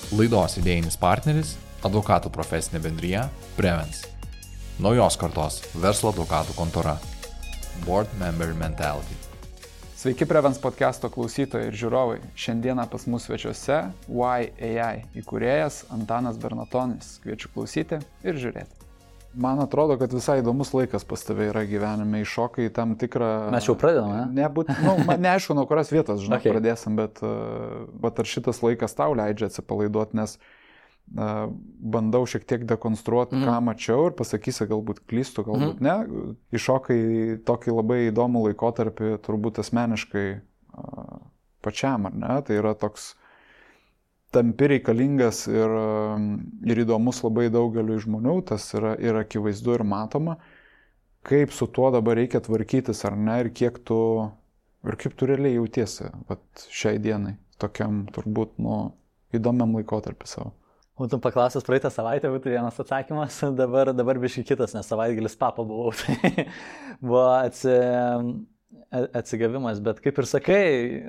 Laidos idėjinis partneris – advokatų profesinė bendrija Prevens. Naujos kartos verslo advokatų kontora. Board Member Mentality. Sveiki Prevens podcast'o klausytojai ir žiūrovai. Šiandieną pas mus svečiuose YAI įkūrėjas Antanas Bernatonis. Kviečiu klausyti ir žiūrėti. Man atrodo, kad visai įdomus laikas pas tave yra gyvenime, iššokai tam tikrą... Mes jau pradedame, ne? Neaišku, nuo kurios vietos, Okay. Pradėsim, bet ar šitas laikas tau leidžia atsipalaiduoti, nes bandau šiek tiek dekonstruoti, ką mačiau ir pasakysi, galbūt klystu, galbūt ne. Iššokai tokį labai įdomų laikotarpį, turbūt asmeniškai pačiam, ar ne? Tai yra toks tampi reikalingas ir įdomus labai daugeliu žmonių, tas yra ir akivaizdu ir matoma, kaip su tuo dabar reikia tvarkytis ar ne, ir kaip tu realiai jautiesi šiai dienai, tokiam turbūt įdomiam laikotarpį savo. Būtum paklausęs praeitą savaitę, būtų vienas atsakymas, dabar biškai kitas, nes savaitgalis papa buvau, tai buvo atsigavimas, bet kaip ir sakai,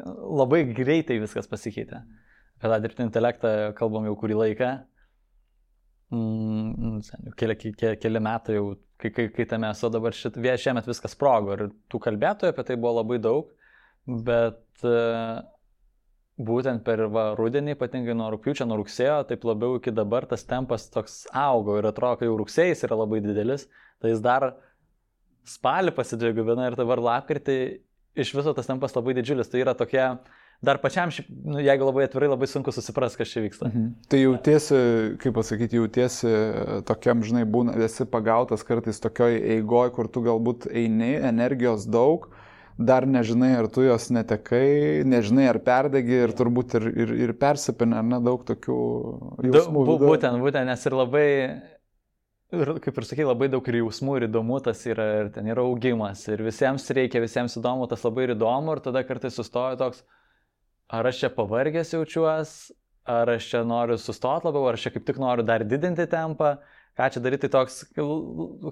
labai greitai viskas pasikeitė. Apie tą dirbtinį intelektą kalbam jau kurį laiką, keli metai jau, kai tame esu dabar šiemet viskas sprogo ir tų kalbėtojų apie tai buvo labai daug, bet būtent per rudenį, ypatingai nuo rugpjūčio, nuo rugsėjo, taip labiau iki dabar tas tempas toks augo ir atrodo, kad jau rugsėjais yra labai didelis, tai jis dar spalį pasidvigubina ir dabar lapkritį iš viso tas tempas labai didžiulis, tai yra tokia... Dar pačiam, jeigu labai atvirai, labai sunku susipras, kas čia vyksta. Tai jautiesi, kaip pasakyti, tokiam, žinai, esi pagautas kartais tokioj eigoj, kur tu galbūt eini, energijos daug, dar nežinai, ar tu jos netekai, nežinai, ar perdegi ir turbūt ir persipinė, ar ne, daug tokių jausmų. Būtent, nes ir labai, kaip ir sakai, labai daug ir jausmų ir įdomu tas yra, ir ten yra augimas, ir visiems reikia, visiems įdomu, tas labai ir įdomu, ir tada kartais sustoja toks, ar aš čia pavargęs jaučiuos, ar aš čia noriu sustoti labiau, ar aš čia kaip tik noriu dar didinti tempą, ką čia daryti, tai toks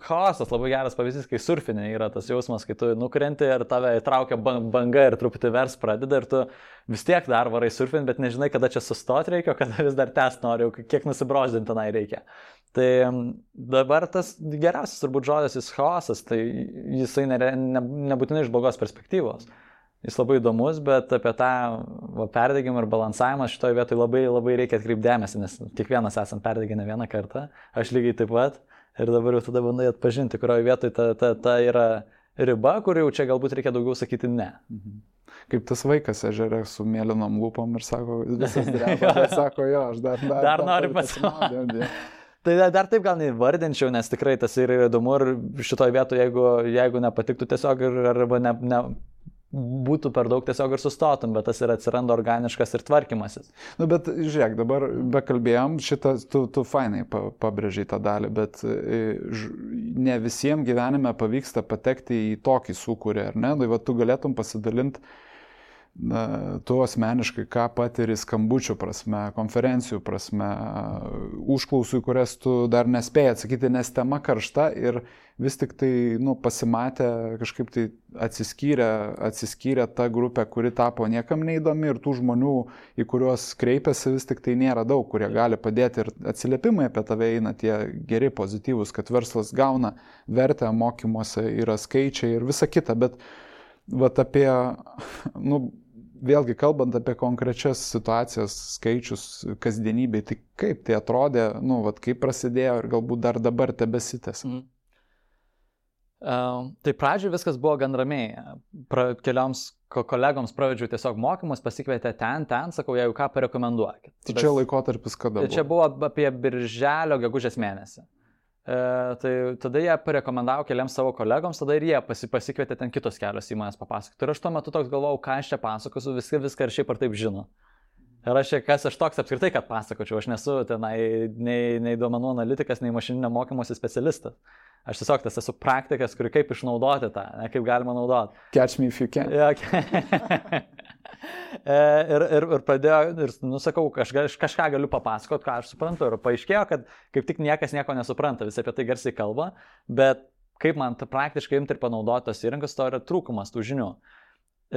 chaosas, labai geras pavyzdys, kai surfinė yra tas jausmas, kai tu nukrenti ir tave įtraukia banga ir truputį vers pradeda ir tu vis tiek dar varai surfinti, bet nežinai, kada čia sustoti reikia, o kada vis dar tęsti noriu, kiek nusibroždinti tenai reikia. Tai dabar tas geriausias turbūt žodis jis chaosas, tai jisai nebūtinai iš blogos perspektyvos. Jis labai įdomus, bet apie tą perdegimą ir balansavimą šitoje vietoje labai, labai reikia atkreipti dėmesį, nes kiekvienas esam perdegę ne vieną kartą, aš lygiai taip pat, ir dabar jau tada bandai atpažinti, kurioje vietoje ta yra riba, kur jau čia galbūt reikia daugiau sakyti ne. Kaip tas vaikas ežere su mėlynom lūpom ir sako, visas dreba, bet sako, jo, aš dar noriu pasimaudyti. Tai dar taip gal neįvardinčiau, nes tikrai tas yra įdomu ir šitoje vietoje, jeigu nepatiktų tiesiog arba būtų per daug tiesiog ir sustotum, bet tas ir atsiranda organiškas ir tvarkymasis. Bet žiūrėk, dabar bekalbėjom, tu fainai pabrėžiai tą dalį, bet ne visiems gyvenime pavyksta patekti į tokį sūkurį, ar ne? Tai tu galėtum pasidalinti tu asmeniškai, ką patiri skambučių prasme, konferencijų prasme, užklausų, kurias tu dar nespėjai atsakyti, nes tema karšta ir vis tik tai pasimatė, kažkaip tai atsiskyrė ta grupė, kuri tapo niekam neįdomi ir tų žmonių, į kuriuos kreipiasi, vis tik tai nėra daug, kurie gali padėti ir atsiliepimai apie tave eina tie geri, pozityvūs, kad verslas gauna vertę, mokymuose yra skaičiai ir visa kita, bet apie, vėlgi kalbant apie konkrečias situacijas, skaičius, kasdienybėj, tai kaip tai atrodė, kaip prasidėjo ir galbūt dar dabar tebesitęs. Tai pradžioje viskas buvo gan ramiai. Kelioms kolegoms pravedžiau tiesiog mokymus, pasikvietė ten, sakau, jeigu ką parekomenduokit. Tai čia laikotarpis kada buvo? Čia buvo apie birželio gegužės mėnesį. Tai tada jie parekomendavo keliams savo kolegoms, tada ir jie pasikvietė ten kitos kelios įmonės papasakoti. Ir aš tuo metu toks galvojau, ką aš čia pasakosiu, viską ir šiaip ar taip žino. Ir kas aš toks apskritai, kad pasakočiau, aš nesu tenai nei duomenų analitikas, nei mašininio mokymosi specialistas. Aš tiesiog esu praktikas, kuri kaip išnaudoti tą, kaip galima naudoti. Catch me if you can. Ir pradėjo, ir sakau, aš kažką galiu papasakoti, ką aš suprantu. Ir paaiškėjo, kad kaip tik niekas nieko nesupranta, visi apie tai garsiai kalba, bet kaip man praktiškai imti ir panaudoti tos įrankius, to yra trūkumas tų žinių.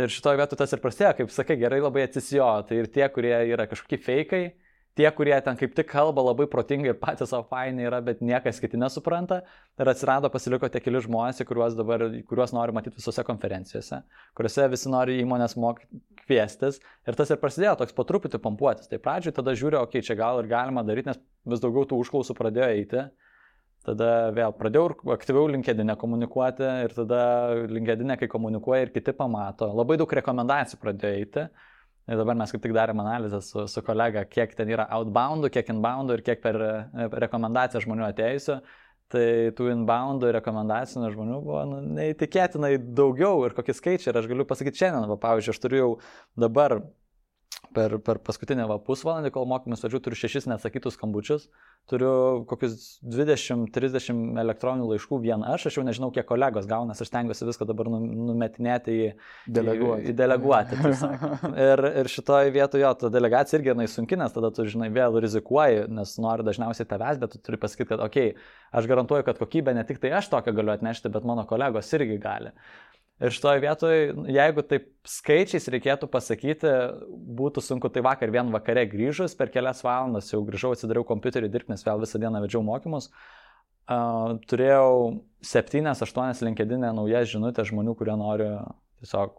Ir šitoje vietoje tas ir prasidėjo, kaip sakai, gerai labai atsisijo. Tai ir tie, kurie yra kažkokie fejkai, tie, kurie ten kaip tik kalba labai protingai ir patys savo fainai yra, bet niekas kiti nesupranta. Ir atsirado, pasiliko tie keli žmonės, kuriuos nori matyti visose konferencijose, kuriuose visi nori įmonės kviestis. Ir tas ir prasidėjo toks po truputį pampuotis. Tai pradžioj tada žiūrėjau, okei, čia gal ir galima daryti, nes vis daugiau tų užklausų pradėjo eiti. Tada vėl pradėjau aktyviau LinkedIn'e komunikuoti ir tada LinkedIn'e, kai komunikuoja ir kiti pamato, labai daug rekomendacijų pradėjo eiti. Ir dabar mes kaip tik darėm analizę su kolega, kiek ten yra outboundų, kiek inboundų ir kiek per rekomendaciją žmonių atėjusių. Tai tų inboundų ir rekomendacijų žmonių buvo neįtikėtinai daugiau ir kokie skaičiai. Ir aš galiu pasakyti šiandien, pavyzdžiui, aš turiu jau dabar per paskutinį pusvalandį, kol mokymus vedžiu, turiu 6 neatsakytus skambučius, turiu kokius 20-30 elektroninių laiškų vien aš jau nežinau, kiek kolegos gauna, aš stengiuosi viską dabar numetinėti į deleguoti. Ir šitoje vietoje ta delegacija irgi sunki, nes tada tu, žinai, vėl rizikuoji, nes nori dažniausiai tavęs, bet tu turi pasakyti, kad okei, aš garantuoju, kad kokybę ne tik tai aš tokią galiu atnešti, bet mano kolegos irgi gali. Ir šitoje vietoje, jeigu taip skaičiais reikėtų pasakyti, būtų sunku, tai vakar vien vakare grįžus, per kelias valandas jau grįžau, atsidariau kompiuterį dirbti, nes vėl visą dieną vedžiau mokymus. Turėjau 7-8 LinkedIn'e naujas žinutės žmonių, kurie nori tiesiog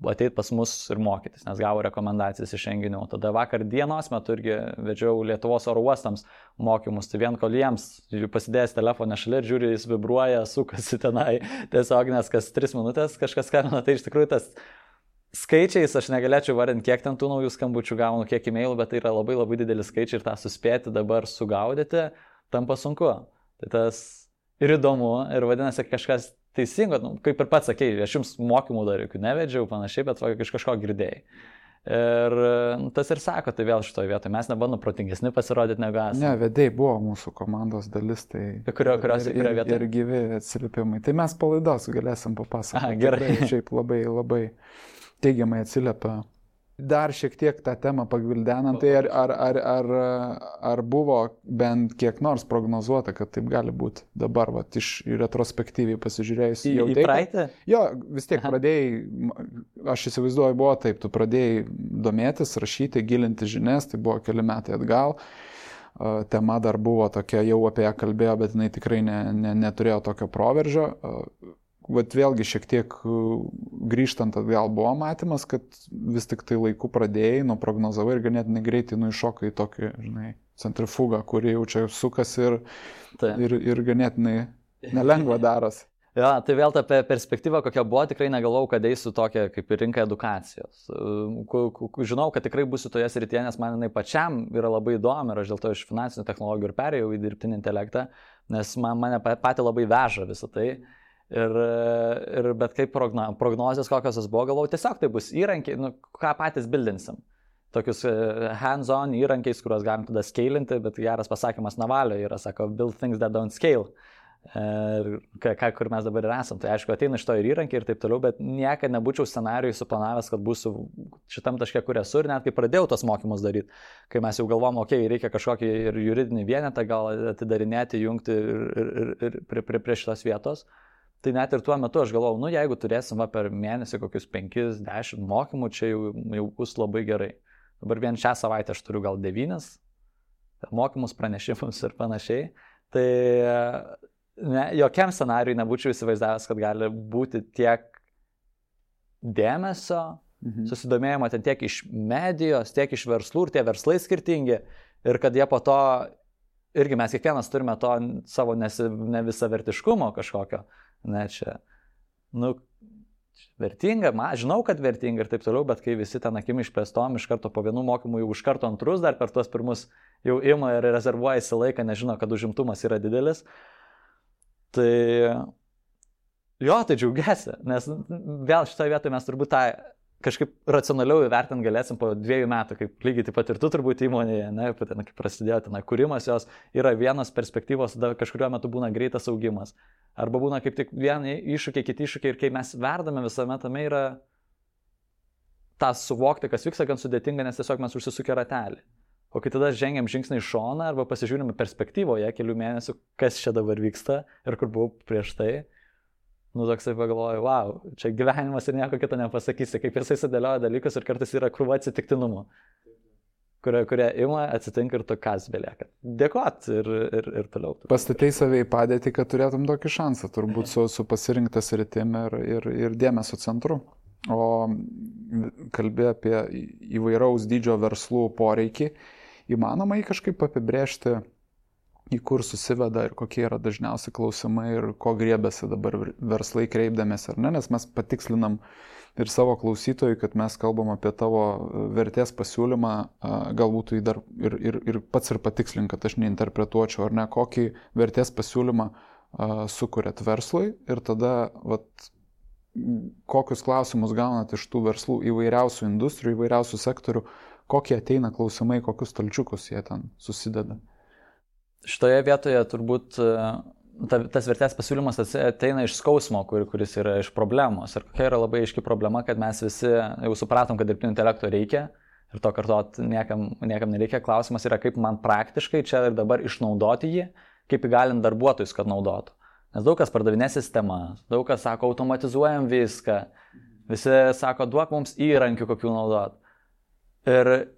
ateiti pas mus ir mokytis, nes gavo rekomendacijas iš renginių. Tada vakar dienos metu irgi vedžiau Lietuvos oro uostams mokymus, tai vien kol jiems pasidėjęs telefoną šalia ir žiūri, jis vibruoja, sukasi tenai tiesiog, nes kas 3 minutės kažkas skambina, tai iš tikrųjų tas skaičiais aš negalėčiau vardinti, kiek ten tų naujų skambučių gaunu, kiek e-mailų, bet tai yra labai labai didelis skaičiai ir tą suspėti dabar sugaudyti tampa sunku. Tai tas ir įdomu ir vadinasi kažkas teisingo, kaip ir pats sakei, aš jums mokymų dar jokių nevedžiau panašiai, bet iš kažko girdėjai. Ir tas ir sako, tai vėl šitoje vietoje mes nebandom protingesni pasirodyti negu esame. Ne, vedėjai buvo mūsų komandos dalis, tai kurios vietoje. Ir gyvi atsiliepimai. Tai mes palaidos galėsim papasakoti. Gerai. Šiaip labai, labai teigiamai atsiliepia. Dar šiek tiek tą temą pagvildenant, tai ar buvo bent kiek nors prognozuota, kad taip gali būti dabar, iš retrospektyviai pasižiūrėjus. Į praeitį? Jo, vis tiek pradėjai, aš įsivaizduoju, buvo taip, tu pradėjai domėtis, rašyti, gilinti žinias, tai buvo keli metai atgal. Tema dar buvo tokia, jau apie ją kalbėjo, bet jinai tikrai neturėjo tokio proveržio. Vat vėlgi šiek tiek grįžtant atgal buvo matymas, kad vis tik tai laiku pradėjai, prognozavai ir ganėtinai greitai iššokai į tokį, žinai, centrifugą, kuri jau čia sukasi ir ganėtinai nelengva daras. Jo, tai vėl ta perspektyva, kokia buvo, tikrai negalvojau, kad eisiu tokią kaip ir rinką edukacijos. Žinau, kad tikrai būsiu toje srityje, nes man jinai pačiam yra labai įdomi ir aš dėl to iš finansinių technologijų ir perėjau į dirbtinį intelektą, nes mane pati labai veža visą tai. Bet kaip prognozijas kokios buvo, galvojau, tiesiog tai bus įrankiai, ką patys bildinsim. Tokius hands-on įrankiais, kuriuos galim tada scalinti, bet geras pasakymas Navalio yra, sako, build things that don't scale. Kur mes dabar ir esam. Tai aišku, ateina iš to ir įrankiai ir taip toliau, bet niekada nebūčiau scenarijui suplanavęs, kad būsiu šitam taške, kur esu, ir net kai pradėjau tos mokymus daryti, kai mes jau galvom, reikia kažkokį ir juridinį vienetą gal atidarinėti, jungti ir prie šitos vietos. Tai net ir tuo metu aš galvojau, jeigu turėsim per mėnesį kokius 5-10 mokymų, čia jau bus labai gerai. Dabar vien šią savaitę aš turiu gal 9 mokymus, pranešimus ir panašiai. Tai jokiam scenarijui nebūčiau įsivaizdavęs, kad gali būti tiek dėmesio, susidomėjimo ten tiek iš medijos, tiek iš verslų ir tie verslai skirtingi. Ir kad jie po to, irgi mes kiekvienas turime to savo ne visavertiškumo kažkokio. Ne, čia, vertinga, žinau, kad vertinga ir taip toliau, bet kai visi ten akim išplėstom, iš karto po vienų mokymų jau iš karto antrus, dar per tuos pirmus jau ima ir rezervuojasi laiką, nežino, kad užimtumas yra didelis. Tai džiaugiasi, nes vėl šitoje vietoje mes turbūt tą kažkaip racionaliau įvertinti galėsim po 2 metų, kaip lygiai taip pat ir tu turbūt įmonėje, kaip prasidėjo ten kūrimas jos, yra vienos perspektyvos, tada kažkuriuo metu būna greitas augimas. Arba būna kaip tik vieni iššūkiai, kiti iššūkiai ir kai mes verdame visame tame yra tą suvokti, kas vyksta, gan sudėtinga, nes tiesiog mes užsisukę ratelį. O kai tada žengiam žingsnį į šoną arba pasižiūrime perspektyvoje kelių mėnesių, kas čia dabar vyksta ir kur buvau prieš tai, toksai pagalvoju, wow, čia gyvenimas ir nieko kito nepasakysi, kaip jisai sudėlioja dalykus ir kartais yra krūva atsitiktinumų. kurie ima, atsitinka ir to kas belieka. Dėkot ir toliau. Pastatei save į padėtį, kad turėtum tokį šansą, turbūt su pasirinktas rytim ir dėmesio centru. O kalbė apie įvairaus dydžio verslų poreikį, įmanoma jį kažkaip apibrėžti, į kur susiveda ir kokie yra dažniausi klausimai ir ko griebėsi dabar verslai kreipdamėsi, ar ne, nes mes patikslinam ir savo klausytojui, kad mes kalbam apie tavo vertės pasiūlymą, galbūt tai dar ir pats ir patikslink, kad aš neinterpretuočiau, ar ne, kokį vertės pasiūlymą sukuriat verslui ir tada kokius klausimus gaunat iš tų verslų įvairiausių industrijų, įvairiausių sektorių, kokie ateina klausimai, kokius stalčiukus jie ten susideda. Šitoje vietoje turbūt tas vertės pasiūlymas ateina iš skausmo, kuris yra iš problemos. Ir kokia yra labai aiški problema, kad mes visi jau supratom, kad dirbtinio intelekto reikia ir to kartot niekam nereikia. Klausimas yra, kaip man praktiškai čia ir dabar išnaudoti jį, kaip įgalint darbuotojus, kad naudotų. Nes daug kas pardavinė sistemas, daug kas sako, automatizuojam viską, visi sako, duok mums įrankių, kokių naudot. Ir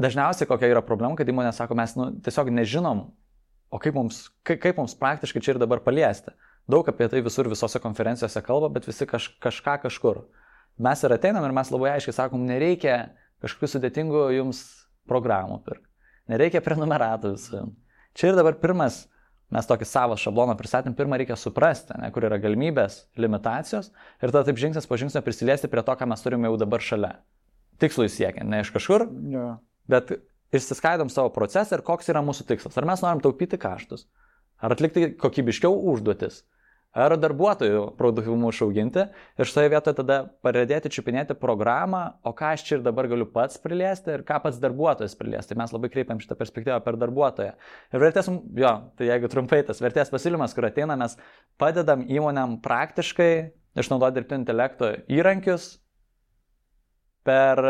dažniausiai kokia yra problema, kad įmonė sako, mes tiesiog nežinom, o kaip mums praktiškai čia ir dabar paliesti. Daug apie tai visose konferencijose kalba, bet visi kažką kažkur. Mes ir ateinam ir mes labai aiškiai sakom, nereikia kažkokių sudėtingų jums programų pirkti. Nereikia prenumeratų visų. Čia ir dabar pirmas, mes tokį savo šabloną pristatėm, pirmą reikia suprasti, kur yra galimybės, limitacijos ir tada taip žingsnis po žingsnio prisiliesti prie to, ką mes turime jau dabar šalia. Tikslui siekiant, ne iš kažkur, bet išsiskaidom savo procesą ir koks yra mūsų tikslas. Ar mes norim taupyti kaštus, ar atlikti kokybiškiau užduotis, ar darbuotojų produktyvumą išauginti ir šitoje vietoje tada pradėti čiupinėti programą, o ką aš čia ir dabar galiu pats priliesti ir ką pats darbuotojas priliesti. Tai mes labai kreipiam šitą perspektyvą per darbuotoją. Ir vertės, tai jeigu trumpai tas vertės pasiūlymas, kur ateina, mes padedam įmonėm praktiškai išnaudoti dirbtinio intelekto įrankius per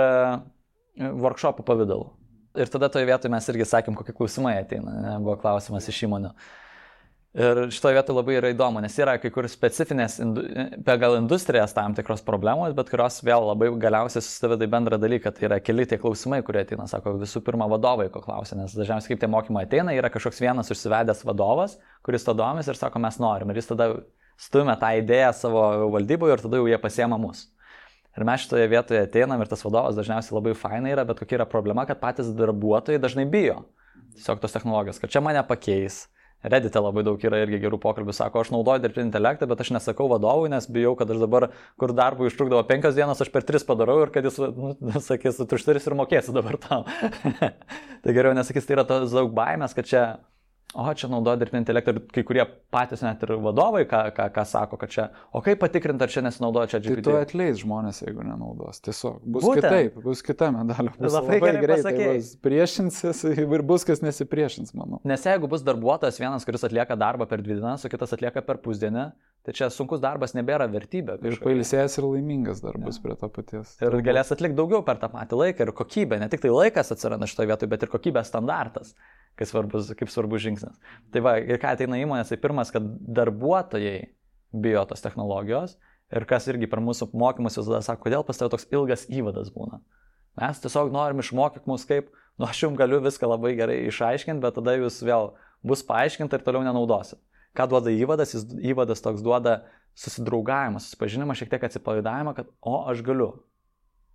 workshopų pavidalų. Ir tada toje vietoje mes irgi sakėm, kokie klausimai ateina, buvo klausimas iš įmonių. Ir šitoje vietoje labai yra įdomu, nes yra kai kur specifinės pagal industrijas tam tikros problemos, bet kurios vėl labai galiausiai susiveda į bendrą dalyką. Tai yra keli tie klausimai, kurie ateina, sako, visų pirma vadovai ko klausia, nes dažniausiai kaip tie mokymai ateina, yra kažkoks vienas užsivedęs vadovas, kuris to domis ir sako, mes norim. Ir jis tada stumia tą idėją savo valdyboje ir tada jau jie pasiema mus. Ir mes šitoje vietoje ateinam ir tas vadovas dažniausiai labai fainai yra, bet kokia yra problema, kad patys darbuotojai dažnai bijo tiesiog tos technologijos, kad čia mane pakeis. Reddite labai daug yra irgi gerų pokalbių, sako, aš naudoju dirbtinį intelektą, bet aš nesakau vadovui, nes bijau, kad aš dabar, kur darbui užtrukdavo 5 dienas, aš per 3 padarau ir kad jis, sakys, tu užturis ir mokėsi dabar tam. Tai geriau nesakys, tai yra tos daug baimės, kad čia naudoja dirbtinį intelektą ir kai kurie patys net ir vadovai, ką sako, kad čia, o kaip patikrinti, ar čia nesinaudoja čia GPT. Tai tu atleis žmonės, jeigu nenaudos. Tiesiog bus kitaip, bus kita medalio. Bus labai greitai, bus priešinsis ir bus kas nesipriešins, manau. Nes jeigu bus darbuotojas vienas, kuris atlieka darbą per 2 dienas, o kitas atlieka per pusdienį, tai čia sunkus darbas nebėra vertybė. Ir pailsėjęs ir laimingas darbas prie to paties. Ir galės atlikti daugiau per tą patį laiką ir kokybę. Ne tik tai laikas atsiranda šitoje vietoje, bet ir kokybės standartas. Kaip svarbus žingsnis. Tai va, ir ką ateina įmonės, tai pirmas, kad darbuotojai bijo tos technologijos ir kas irgi per mūsų mokymus visada sako, kodėl pas tave toks ilgas įvadas būna. Mes tiesiog norim išmokyti mus kaip, aš jums galiu viską labai gerai išaiškinti, bet tada jūs vėl bus paaiškinta ir toliau nenaudosit. Ką duoda įvadas? Įvadas toks duoda susidraugavimą, susipažinimą, šiek tiek atsipalaidavimą, kad aš galiu.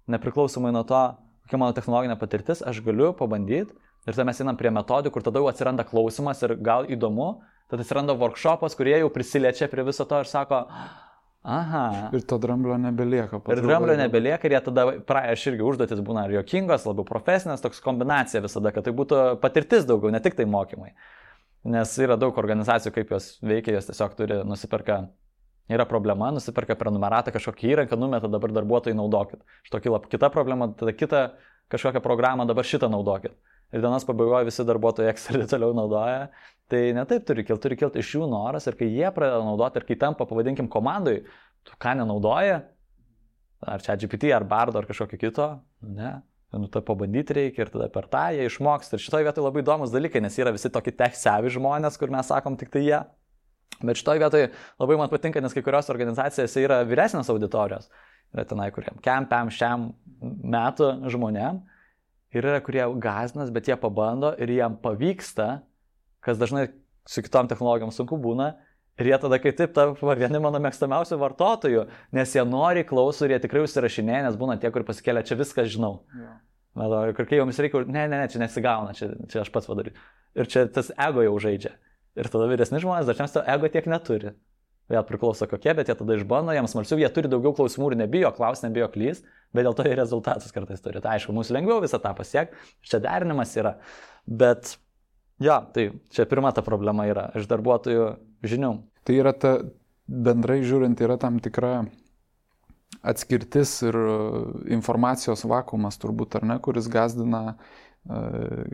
Nepriklausomai nuo to, kokia mano technologinė patirtis, aš galiu pabandyti. Ir tada mes einam prie metodų, kur tada jau atsiranda klausimas ir gal įdomu, tada atsiranda workshopas, kurie jau prisiliečia prie viso to ir sako, aha. Ir to dramblio nebelieka. Ir dramblio nebelieka ir jie tada, aš irgi užduotis būna ir juokingos, labiau profesinės, toks kombinacija visada, kad tai būtų patirtis daugiau, ne tik tai mokymai. Nes yra daug organizacijų, kaip jos veikia, jos tiesiog turi nusiperka. Yra problema, nusiperka prenumeratą kažkokį įrankį, numeta dabar darbuotojai naudokit. Šito kyla kita problema, tada kita kažkokią programą, dabar šitą naudokit. Ir dienos pabaigoje visi darbuotojai Excelį toliau naudoja. Tai ne taip turi kilti iš jų noras ir kai jie pradeda naudoti ir kai tampa, pavadinkim, komandai, tu ką nenaudoji, ar ChatGPT, ar Bardo, ar kažkokio kito, ne, tai pabandyti reikia ir tada per tą jie išmoks. Ir šitoje vietoje labai įdomus dalykai, nes yra visi tokie tech-savvy žmonės, kur mes sakom tik tai jie. Bet šitoje vietoje labai man patinka, nes kai kurios organizacijose yra vyresnės auditorijos. Yra tenai, kuriem kempiam šiam metų žmonėm. ir yra, kurie gąsdinas, bet jie pabando ir jiem pavyksta, kas dažnai su kitom technologijom sunku būna, ir jie tada kaip taip tampa vieni mano mėgstamiausių vartotojų, nes jie nori, klauso ir jie tikrai užsirašinėja, nes būna tie, kur pasikėlė, čia viską žinau. Ir kai joms reikia, ne, čia nesigauna, čia aš pats padarysiu. Ir čia tas ego jau žaidžia. Ir tada vyresni žmonės dažniausiai to ego tiek neturi. Vėl priklauso kokie, bet jie tada išbando, jiems smalsiau, jie turi daugiau klausimų ir nebijo klaus, nebijo klys, bet dėl to ir rezultatus kartais turi. Tai aišku, mums lengviau visą tą pasiekti, čia derinimas yra. Bet jo, tai čia pirma ta problema yra iš darbuotojų žinių. Tai yra bendrai žiūrint, yra tam tikra atskirtis ir informacijos vakuumas turbūt, ar ne, kuris gąsdina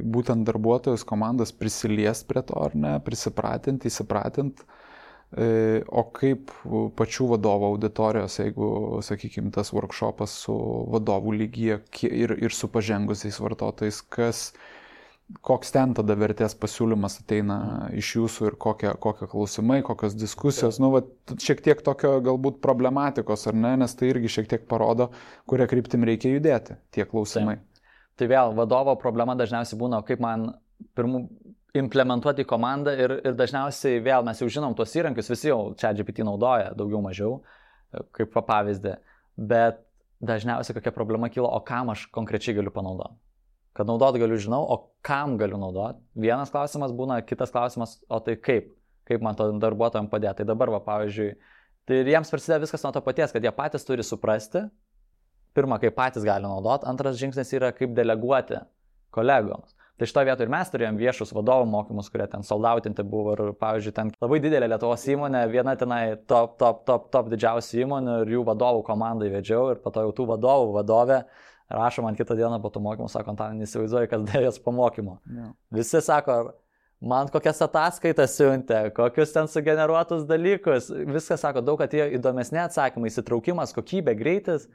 būtent darbuotojus, komandas prisiliest prie to, ar ne, prisipratinti, įsipratinti. O kaip pačių vadovų auditorijos, jeigu, sakykime, tas workshopas su vadovų lygyje ir su pažengusiais vartotojais, koks ten tada vertės pasiūlymas ateina iš jūsų ir kokie klausimai, kokios diskusijos, šiek tiek tokio galbūt problematikos, ar ne, nes tai irgi šiek tiek parodo, kuria kryptim reikia judėti, tie klausimai. Tai vėl, vadovo problema dažniausiai būna, kaip man implementuoti į komandą ir dažniausiai vėl mes jau žinom tuos įrankius, visi jau ChatGPT naudoja daugiau mažiau, kaip pavyzdį, bet dažniausiai kokia problema kyla, o kam aš konkrečiai galiu panaudoti. Kad naudot galiu žinau, o kam galiu naudot. Vienas klausimas būna, kitas klausimas, o tai kaip man to darbuotojams padėti. Tai dabar, pavyzdžiui, tai jiems prasideda viskas nuo to paties, kad jie patys turi suprasti, pirma, kaip patys gali naudot, antras žingsnis yra, kaip deleguoti kolegoms. Tai šitoje vietoje ir mes turėjom viešus vadovų mokymus, kurie ten soldautinti buvo ir, pavyzdžiui, ten labai didelė Lietuvos įmonė, viena tenai top didžiausių įmonių ir jų vadovų komandai vedžiau ir po to jau tų vadovų vadovė rašo man kitą dieną po tų mokymų, sako, Antanai, neįsivaizduoju, kas dėjęs po mokymo. Yeah. Visi sako, man kokias ataskaitas siuntė, kokius ten sugeneruotus dalykus, viskas sako, daug atėjo įdomesni atsakymai, įsitraukimas, kokybė, greitis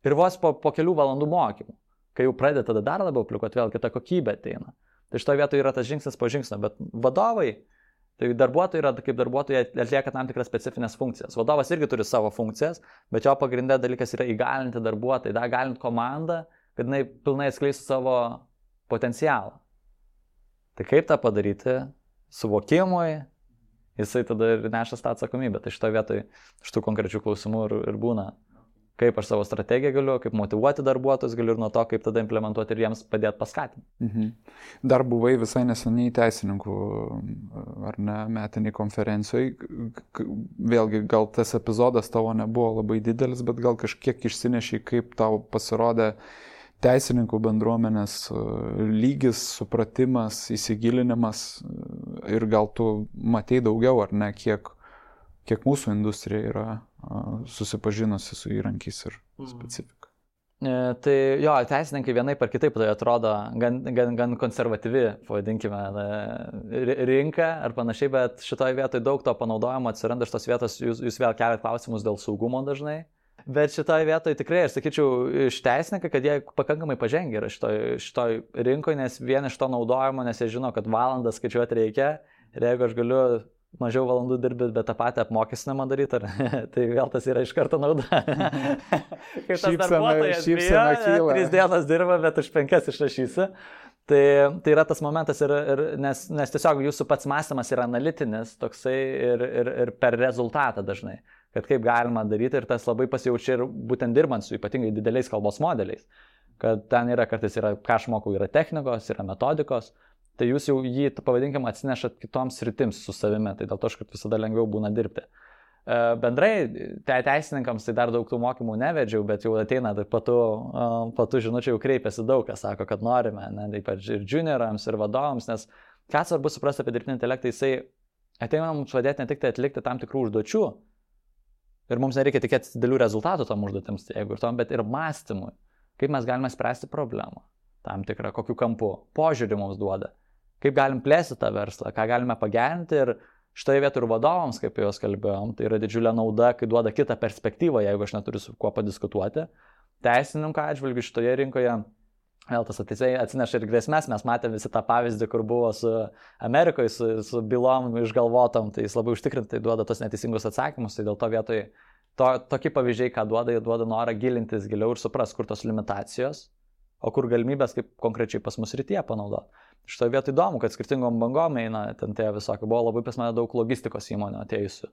ir vos po kelių valandų mokymų. Kai jau pradeda tada dar labiau aplikuoti, vėl kita kokybė ateina. Tai šitoje vietoje yra tas žingsnis po žingsnio, bet vadovai, tai darbuotojai yra, kaip darbuotojai atlieka tam tikras specifines funkcijas. Vadovas irgi turi savo funkcijas, bet jo pagrindė dalykas yra įgalinti darbuotojai, įgalinti komandą, kad jinai pilnai atskleistų savo potencialą. Tai kaip tą padaryti? Suvokimui, jisai tada ir nešas tą atsakomybę. Tai šitoje vietoje šitų konkrečių klausimų ir būna. Kaip aš savo strategiją galiu, kaip motyvuoti darbuotojus galiu ir nuo to, kaip tada implementuoti ir jiems padėti paskatinti. Mhm. Dar buvai visai neseniai teisininkų, ar ne, metiniai konferencijoje. Vėlgi, gal tas epizodas tavo nebuvo labai didelis, bet gal kažkiek išsinešiai, kaip tau pasirodė teisininkų bendruomenės lygis, supratimas, įsigilinimas ir gal tu matei daugiau, ar ne, kiek mūsų industrija yra susipažinusi su įrankiais ir specifika. Tai jo, teisininkai vienaip ar kitaip tai atrodo gan konservatyvi, pavadinkime, rinka ar panašiai, bet šitoje vietoje daug to panaudojimo atsiranda iš tos vietos, jūs vėl keliat klausimus dėl saugumo dažnai. Bet šitoje vietoje tikrai, aš sakyčiau, iš teisininkai, kad jie pakankamai pažengia yra šitoj rinkoje, nes vien iš to naudojimo, nes jie žino, kad valandas skaičiuoti reikia ir jeigu aš galiu mažiau valandų dirbti, bet tą patį apmokestinimą daryti, tai vėl tas yra iš karto nauda. Kaip tas darbuotojas bijo, 3 dienas dirba, bet už 5 išrašysi. Tai yra tas momentas, nes tiesiog jūsų pats mąstymas yra analitinis toksai ir per rezultatą dažnai. Kad kaip galima daryti ir tas labai pasijaučia ir būtent dirbant su ypatingai dideliais kalbos modeliais. Kad ten yra kartais, ką aš mokau, yra technikos, yra metodikos. Tai jūs jau jį, pavadinkim, atsinešat kitoms sritims su savimi, tai dėl to, kad visada lengviau būna dirbti. Bendrai, teisininkams tai dar daug tų mokymų nevedžiau, bet jau ateina, tai po tų žinučių jau kreipiasi daug, kas sako, kad norime, ne, ypač ir juniorams, ir vadovams, nes ką svarbu suprasti apie dirbtinį intelektą, jisai ateina mums padėti ne tik tai atlikti tam tikrų užduočių, ir mums nereikia tikėtis didelių rezultatų tom užduotėms, jeigu ir tom, bet ir mąstymui, kaip mes galime spręsti problemą, tam tikrą, kokiu kampu, požiūrį mums duoda. Kaip galim plėsti tą verslą, ką galime pagerinti ir šitoje vietoje ir vadovams, kaip jau kalbėjom, tai yra didžiulė nauda, kai duoda kitą perspektyvą, jeigu aš neturiu su kuo padiskutuoti. Teisininko atžvilgiu šitoje rinkoje, vėl tas atsineša ir grėsmės, mes matėme visi tą pavyzdį, kur buvo su Amerikoje, su bylom išgalvotom, tai jis labai užtikrintai duoda tos neteisingus atsakymus, tai dėl to vietoje tokie pavyzdžiai, ką duoda, jie duoda norą gilintis giliau ir supras, kur tos limitacijos. o kur galimybės kaip konkrečiai pas mus rytyje panaudoti. Šitoje vietoje įdomu, kad skirtingom bangom eina ten tie visokie, buvo labai pas mane daug logistikos įmonių atėjusių.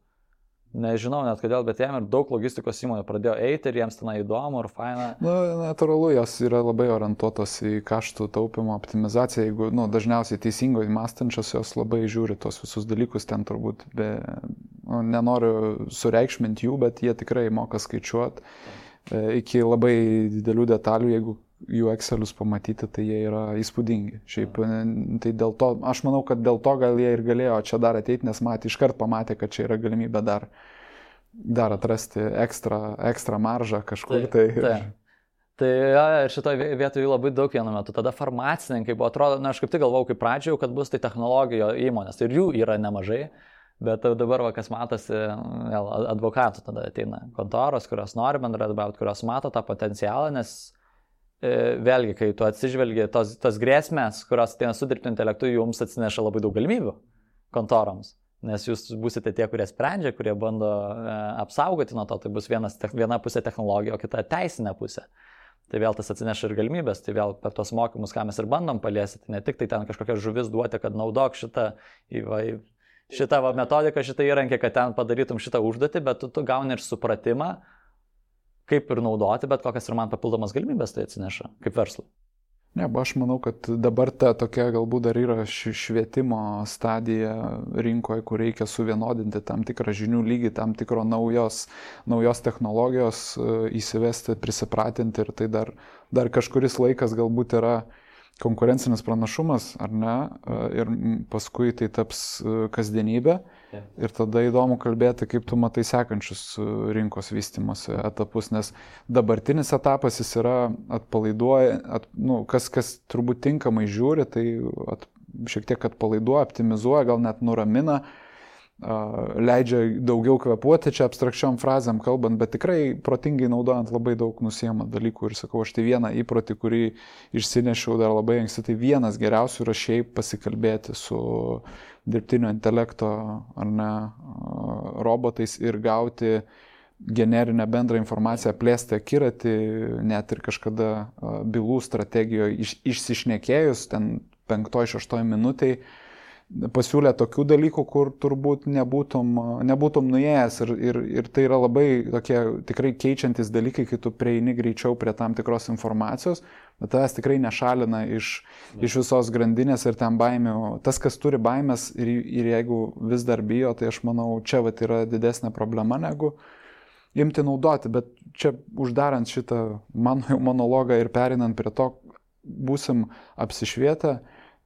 Nežinau net kodėl, bet jiem ir daug logistikos įmonių pradėjo eiti ir jiems ten įdomu ir faina. Natūralu, jos yra labai orientuotos į kaštų taupimo optimizaciją, jeigu dažniausiai teisingai mąstančios jos labai žiūri tos visus dalykus, ten turbūt nenoriu sureikšminti jų, bet jie tikrai moka skaičiuoti iki labai didelių detalių, jeigu jų Excelius pamatyti, tai jie yra įspūdingi. Šiaip, tai dėl to, aš manau, kad dėl to gal jie ir galėjo čia dar ateiti, nes iškart pamatė, kad čia yra galimybė dar atrasti ekstra maržą kažkur. Tai ir šitoje vietoje labai daug vienu metu. Tada farmacininkai buvo, atrodo, aš kaip tik galvojau, kaip pradžioje, kad bus tai technologijų įmonės. Ir jų yra nemažai. Bet dabar, kas matosi, advokatų tada ateina kontoros, kurios nori bendradarbiauti, kurios mato tą potencialą, nes vėlgi, kai tu atsižvelgi tos grėsmės, kurios ateina su dirbtiniu intelektu, jums atsineša labai daug galimybių kontoroms. Nes jūs būsite tie, kurie sprendžia, kurie bando apsaugoti nuo to, tai bus viena pusė technologija, o kita teisinė pusė. Tai vėl tas atsineša ir galimybės, tai vėl per tos mokymus, ką mes ir bandom paliesti, tai ne tik tai ten kažkokią žuvis duoti, kad naudok šitą metodiką, šitą įrankį, kad ten padarytum šitą užduotį, bet tu gauni ir supratimą, kaip ir naudoti, bet kokias ir man papildomas galimybės tai atsineša, kaip verslui. Ne, aš manau, kad dabar ta tokia galbūt dar yra švietimo stadija rinkoje, kur reikia suvienodinti tam tikrą žinių lygį, tam tikro naujos technologijos įsivesti, prisipratinti ir tai dar kažkuris laikas galbūt yra konkurencinis pranašumas, ar ne, ir paskui tai taps kasdienybė. Ir tada įdomu kalbėti, kaip tu matai sekančius rinkos vystymosi etapus, nes dabartinis etapas jis yra atpalaiduoja, kas turbūt tinkamai žiūri, tai šiek tiek atpalaiduoja, optimizuoja, gal net nuramina, leidžia daugiau kvėpuoti čia abstrakčiom frazėm kalbant, bet tikrai protingai naudojant labai daug nusiema dalykų. Ir sakau, aš tai vieną įprotį, kurį išsinešiau dar labai anksti, tai vienas geriausių yra šiaip pasikalbėti su dirbtinio intelekto ar ne robotais ir gauti generinę bendrą informaciją, plėsti akiratį, net ir kažkada bylų strategijoje išsišnekėjus, ten 5-6 minutėj, pasiūlė tokių dalykų, kur turbūt nebūtum nuėjęs ir tai yra labai tokie tikrai keičiantis dalykai, kai tu prieini greičiau prie tam tikros informacijos, bet tavęs tikrai nešalina iš visos grandinės ir ten baimių. Tas, kas turi baimės ir jeigu vis dar bijo, tai aš manau, čia yra didesnė problema negu imti naudoti, bet čia uždarant šitą mano monologą ir perinant prie to, būsim apsišvietę,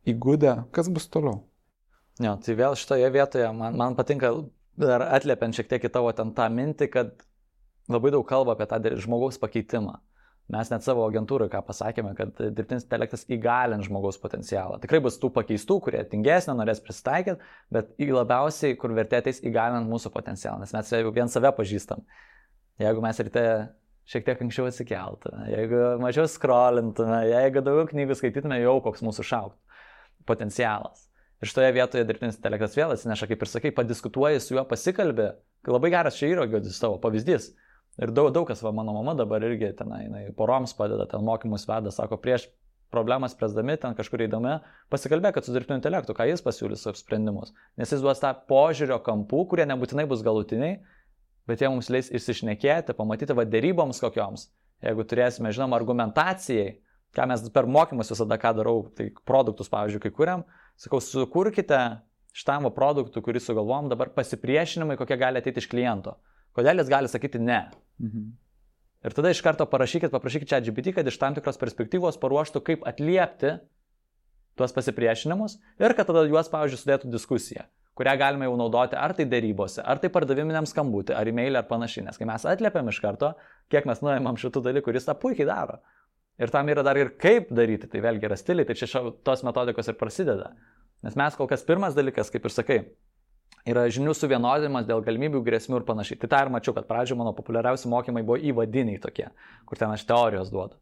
įgudę, kas bus toliau. Jo, tai vėl šitoje vietoje man patinka dar atliepiant šiek tiek į tavo ten tą mintį, kad labai daug kalba apie tą žmogaus pakeitimą. Mes net savo agentūrai ką pasakėme, kad dirbtinis intelektas įgalins žmogaus potencialą. Tikrai bus tų pakeistų, kurie tingesnė, norės prisitaikyti, bet labiausiai, kur vertė ateis įgalinant mūsų potencialą, nes mes jau vien save pažįstam. Jeigu mes ryte šiek tiek anksčiau atsikeltume, jeigu mažiau scrollintume, jeigu daugiau knygų skaitytume, jau koks mūsų šauktų potencialas. Ir šitoje vietoje dirbtinis intelektas vėl atsineša, kaip ir sakai, padiskutuoji su juo, pasikalbė. Labai geras čia yra tavo pavyzdys. Ir daug kas, mano mama dabar irgi jinai poroms padeda, ten mokymus veda, sako, prieš problemas spręsdami, ten kažkur eidami, pasikalbėkit su dirbtiniu intelektu, ką jis pasiūlys savo sprendimus. Nes jis duos tą požiūrio kampų, kurie nebūtinai bus galutiniai, bet jie mums leis išsišnekėti, pamatyti deryboms kokioms. Jeigu turėsime, žinoma, argumentacijai, ką mes per mokymus visada ką darau, tai produktus, pavyzdžiui, kai kuriam, sakau, sukurkite šitam produktų, kurį sugalvojom, dabar pasipriešinimai, kokie gali ateiti iš kliento. Kodėl jis gali sakyti ne. Ir tada iš karto paprašykit ChatGPT, kad iš tam tikros perspektyvos paruoštų, kaip atliepti tuos pasipriešinimus ir kad tada juos, pavyzdžiui, sudėtų diskusiją, kurią galime jau naudoti ar tai derybose, ar tai pardaviminiam skambutį, ar e-mailį, ar panašiai. Nes kai mes atliepiam iš karto, kiek mes nuėmam šitų dalykų, jis tą puikiai daro. Ir tam yra dar ir kaip daryti, tai vėlgi yra stiliai, tai čia tos metodikos ir prasideda. Nes mes kol kas pirmas dalykas, kaip ir sakai, yra žinių suvienodinimas dėl galimybių, grėsmių ir panašiai. Tai tą ir mačiau, kad pradžioje mano populiariausi mokymai buvo įvadiniai tokie, kur ten aš teorijos duodu.